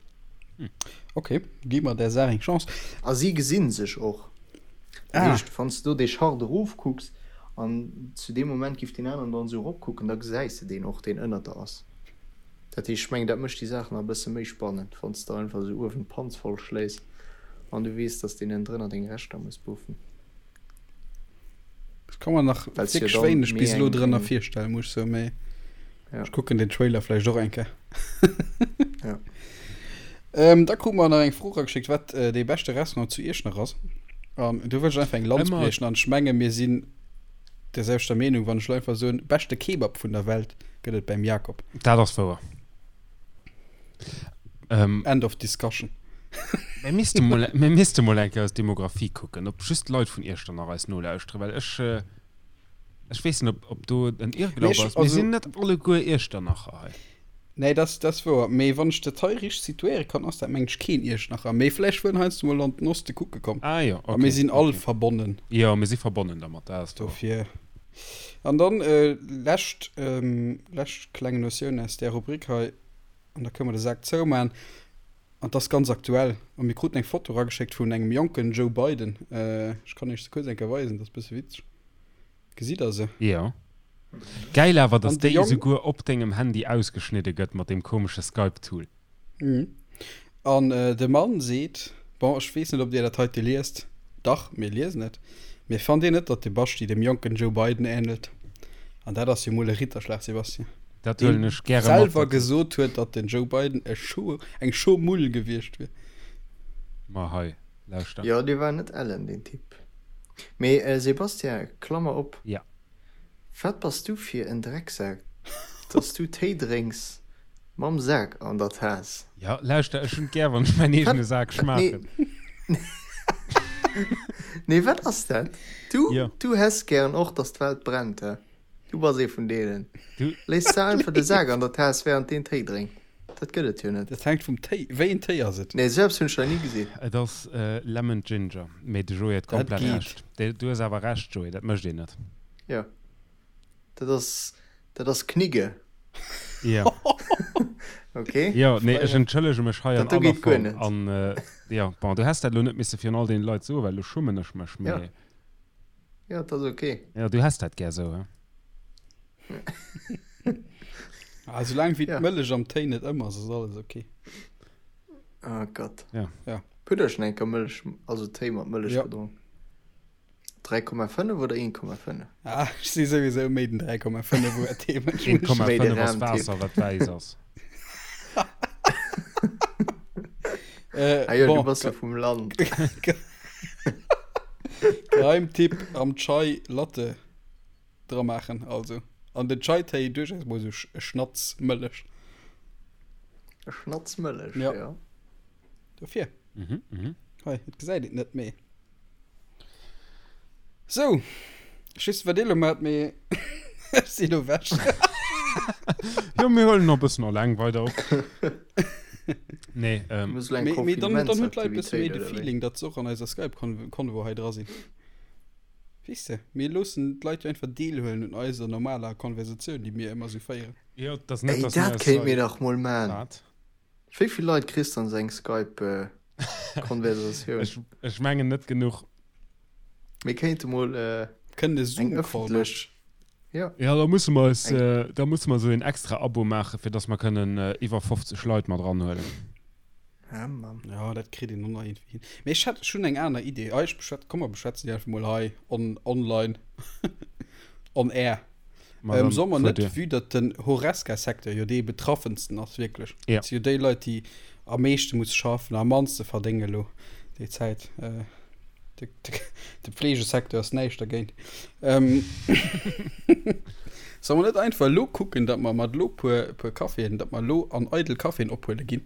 Ok, gi mer där Saach eng Chance. A si gesinn sech och. Dat Ah. heescht, wann s de do dee Schacht erofkucks an zu deem Moment giff deen aneren dann esou eropkucken, da gesäis de deen och, deen ënnert der ass. Dat heescht, ech mengen, dat mécht déi Saach nach e bësse méi spannend, wann s de einfach esou uewen d'Panz voll schléis an du weess, dass deen ënnendrënner deng Reschter muss buffen. Ech ka mer nach Well s jo wierklech dann wéineg méi bis elo eng, drënner eng, virstellen, muss ech soen, mee ja, ech kucken den Trailer vläicht och eng Kéier. ja. Ähm, da krute mer nach eng Fro erageschéckt, wat äh, dee beschte Restaurant zu Iechternach ass. An do wëll ech einfach eng Lanz Ëmmer briechen an ech menge mir sinn der selwechter Meenung, wann ech elo einfach soen, beschte Kebab vun der Welt gëtt et beim Jakob. Dat ass wouer. Ähm, End of discussion. Mir misste mol, mir misste mol eng Kéier eis Demografie kucken, ob just Leit vun Iechternach eis nolauschteren, well ech, äh. Ech weess net, ob, ob do en Irrglaub ass. Mir sinn net alleguer Iechternacher hei. Nee, dat ass wouer. Mee wann ech dat hei richteg situéiere kann, ass dat mengen ech keen Iechternacher. Mee vläicht wuar en heiansdo mol an den Oste kucke komm. Ah jo, okay. A mir sinn all verbonnen. Jo, mir si verbonnen dermat, dat ass wouer. Dofir. An dann lescht, lescht kleng Notioun aus där Rubrik hei, an da kënne mer de Sak zouman. An 't ass ganz aktuell. A mir kruten eng Foto erageschéckt vun engem jonken Joe Biden. Ech kann iech se kuerz eng Kéier weisen, dat ass bësse witzeg. Gesitt der se? Jo. Gäil awer, dass déi esouguer op dengem Handy ausgeschnidde gëtt mat deem komesche Skype-Tool. An de Mann seet, bon, ech weess net, ob Dir dat heite liest. Dach, mir liesen et. Mee fannt Dir net, datt de Basti dem jonken Joe Biden änelt? An dat ass jo mol e Ritterschlag, Sébastien. Dat huelen ech gäre mat. Selwer gesot huet, datt den Joe Biden e Scho, eng Schomull gewiescht wier. Ma hei, lauschter. Jo, dee war net ellen, deen Typ. Mee Sébastien, Klammer op, Ja. Wat bass du fir en Drecksak, datt s du Téi drénks mam Sak an der Taass? Jo, lauschter, ech hunn et gär, wann ech mäin eegene Sak schmaachen. Nee, wat ass dat? Du, du häss gären och, datt d'Welt brennt, he? Du bass ee vun deenen. Du. Léiss de einfach de Sak an der Taass während deen Téi drénkt. Dat gëtt et jo net. Dat hänkt vum Téi. Wéi een Téi ass et? Nee, esou eppes hunn ech nach ni gesinn. Et ass Lemon Ginger. Mee de Joé huet Dat komplett geet. Recht. Du hues awer Recht, Joé, dat mécht een net. Jo. Dat ass, dat ass Knigge. Jo. Ok. Jo, nee, ech entschëllege mech hei an Dat do aller geet guer Form. net. An, jo, bon, du häss dat elo net misse virun all deene Leit soen, well elo schummen ech mech, Jo. mee. Jo, dat ass ok. Jo, du häss dat gär sou, he? Ah, soulaang wéi Ja. d'Mëllech am Téi net ëm ass, ass alles ok. Oh Gott. Ja. Ja. Hutt der schonn eng Kéier Mëllech, also Téi mat Mëllech Ja. gedronk? 3,5 oder 1,5? Ah, ech si souwisou méi den 3,5 Uhr Téi-Mënsch. 1,5 ass Waasser, wat wäiss ass. Äh, Ah jo, bon, du bass jo vum Land. Geheimtipp am Chai Latte dra maachen also an den Chai Téi duerchaus mol sou e Schnatz Mëllech. E Schnatz Mëllech, ja. ja. Dofir. Mhm, mhm. Hei, et gesäit et net méi. Sou, ech weess net wat dir elo maacht, mee ech si elo ewech. Jo, mir huelen nach e bëssen alleng weider op. Nee, ähm. Muss elo eng Mee, mee dann, dann hunn d'Leit e bësse méi Konfinementsaktivitéit de oder wéi? Feeling, datt se och an eiser Skype-Convo hei dra sinn. Weess de, mir loossen d'Leit jo einfach deelhuelen un eiser normaler Konversatioun, déi mir ëmmer sou féieren. Jo, et ass net, Ey, datt mir dat eis kéint hei. mir dach mol maan. Wat? Wéi vill Leit kriss de an sou eng Skype-Konversatioun? Ech, ech mengen net genuch. Mir kéinte mol Kënnen e eng Zoom-Call maachen. ëffentlech, jo. Ja, da musse mer eis, Eng. da musse mer esou een extra Abo maachen, fir dass mer kënnen iwwer 50 Leit mat eranhuelen. Ah, Mann. Ja, dat kritt een och nach iergendwéi hin. Mee ech hätt, ech hunn eng aner Idee. Ah, ech beschwät, komm mer beschwätzen déi einfach mol hei on, online, on air. Ma Ähm, dann soll mer fuer net, dir. vue datt den Horesca-Secteur jo dee betraffensten ass, wierklech. Ja. Dat si jo déi Leit, déi am meeschte musse schaffen, am mannste verdénge lo déi Zäit. Äh, de, de, de Pflegesecteur ass näischt dergéint. Ähm, soll mer net einfach elo kucken, datt mer mat elo puer, puer Caféen, datt mer elo an eidel Caféen ophuele ginn?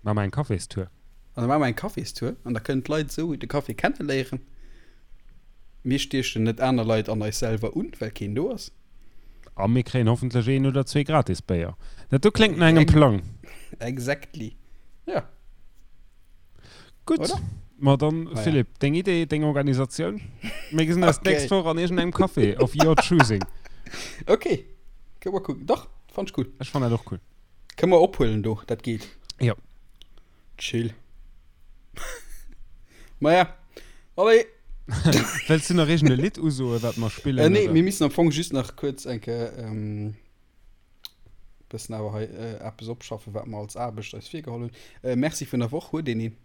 Maache mer eng Caféstour. An da maache mer eng Caféstour an da kënnen d'Leit esou de Café kenneléieren. Mir stiechen net aner Leit an eis selwer un, well keen do ass. A mir kréien hoffentlech een oder zwee gratis Béier. Dat do kléngt no engem Plang. Exactly. Ja. Gutt. Oder? Ma dann, Naja. Philippe, deng Idee, deng Organisatioun. Mir gesinn eis Okay. d'nächst Woch an iergendengem Café of your choosing. Okay. Kënne mer kucken. Dach, fannt ech cool. Ech fannen dat och cool. Kënne mer ophuelen do, dat geet. Jo. Chill. Maja, allez. Wëlls du nach iergend e Lidd usoen, wat mer spillen? Äh, nee, oder? mir missen am Fong just nach kuerz eng Kéier ähm, bëssen awer hei äh, eppes opschaffen, wat mer als Aarbecht eis virgeholl hunn. Äh, Merci vun der Woch, huet een een?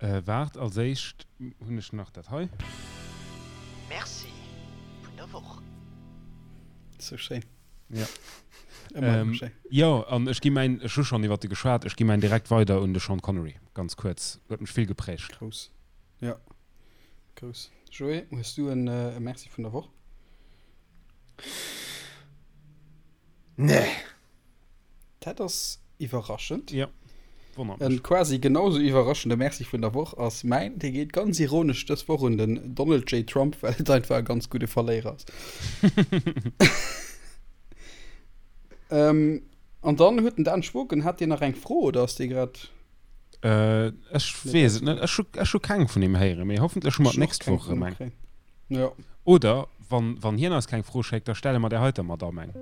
Äh, waart, als éischt hunn ech nach dat hei. Merci vun der Woch. Sou schéin. Ja. Ëmmer Ähm, schéin. jo, an ech gi mäin, ech hu schonn iwwert e geschwat, ech gi mäin direkt weider un de Sean Connery, ganz kuerz. Huet mech vill geprägt. Grouss. Ja. Grouss. Joé, hues du en e Merci vun der Woch? Nee. Dat ass iwwerraschend. Ja. Wonnert En mech. quasi genau sou iwwerraschende Merci vun der Woch ass mäin. Dee geet ganz ironesch dës Woch un den Donald J. Trump, well et einfach e ganz gudde Verléierer ass. Ähm, an dann huet den Dan Schwoken, hat deen nach eng Fro oder ass dee grad Äh, ech weess et net. Ech hu, ech hu keng vun him héieren, mee hoffentlech hu mer Ech och d'nächst keng Woch vun erëm him eng. kréien. Jo. Oder wann, wann hien eis keng Fro schéckt, da stelle mer där heiter Madamm eng.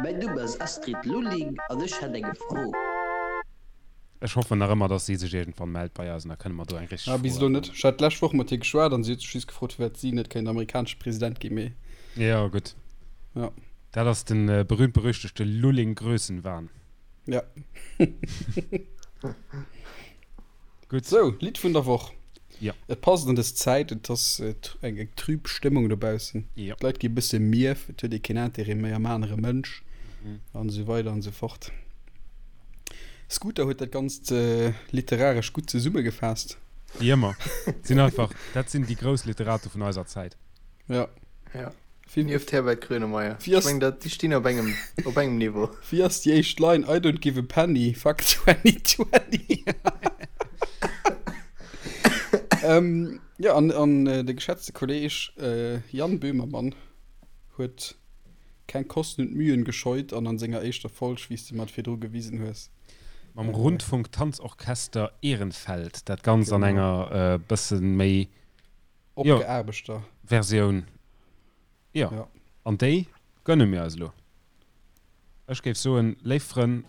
Mäin Numm ass Astrid Lulling an ech hätt eng Fro. Ech hoffen nach ëmmer, dass si sech iergendwann mellt bei eis an da kënne mer do eng richteg Ah, bis Fro elo net. erfëllen. Ech hat d'lescht Woch mat hir geschwat an si huet sech just gefrot, firwat si net kéint amerikanesche President ginn, mee Jo, gutt. ja. Dat ass de berühmt-berüchtegte Lulling-Grössenwahn. Ja. Gutt. Sou, Lidd vun der Woch. Ja. Et passt an dës Zäit, et ass eng eng trüb Stëmmung dobaussen. Ja. D'Leit gi bësse mierf, et huet ee keen Interêt méi am anere Mënsch an esou weider an esou fort. Scooter huet dat Ganzt literaresch gutt zesummegefaasst. Wéi ëmmer. Sinn einfach, dat sinn déi grouss Literate vun eiser Zäit. Ja. Ja. Wéi, Nieft Herbert Grönemeyer. Wéi ass- Ech meng, dat, déi stinn op engem, op engem Niveau. wéi ass déi éischt Line? I don't give a penny, fuck 2020. ähm, ja, an, an äh, de geschätzte Kolleg äh, Jan Böhmermann huet keng Kosten und Mühen gescheut an an senger éischter Folg, wéi s de mer et virdru gewisen hues, Mam Rundfunk-Tanzorchester Ehrenfeld, dat Ganzt an Genau. enger äh, bësse méi Jo. Opgeaarbechter. Versioun. Jo. Ja. An déi gönne mir eis elo. Ech géif soen, léif Frënn,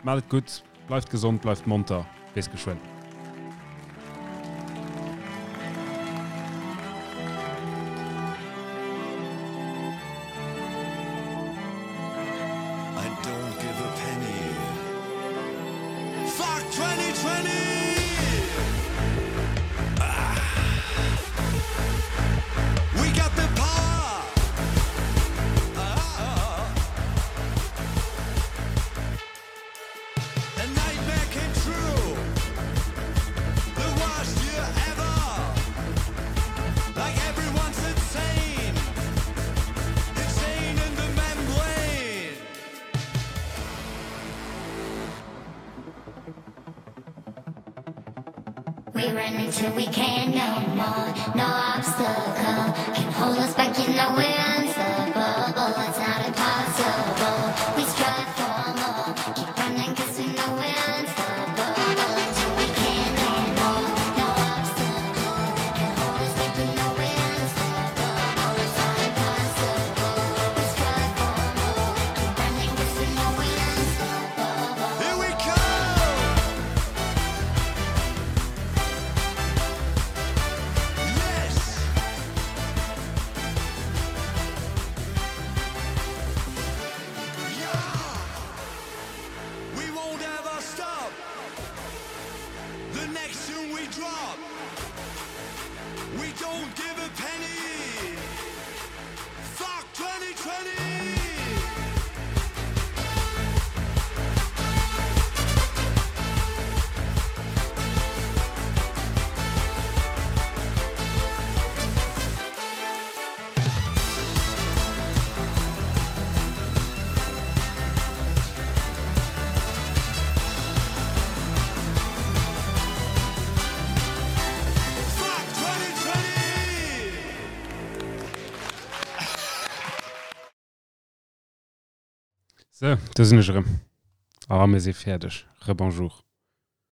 maacht et gutt, bleift gesond, bleift monter, bis geschwënn. I don't give a penny. Fuck 2020! Ah. We got the power! Ah. A nightmare came true. The worst year ever. Like everyone's insane. Insane in the membrane. We run until we can't no more. No obstacle can hold us back. You know we're unstoppable. It's not impossible. We strive for more. Keep running 'cause we know we're unstoppable. Until we can't no more. No obstacle can hold us back. You know we're unstoppable. It's not impossible. We strive for more. Keep running 'cause we know we're unstoppable. Here we come! Yes! Yeah! We won't ever stop. The next tune we drop, we don't give a penny. Fuck 2020! Fuck 2020! Sou, do sinn ech erëm. A mir si fäerdeg. Rebonjour.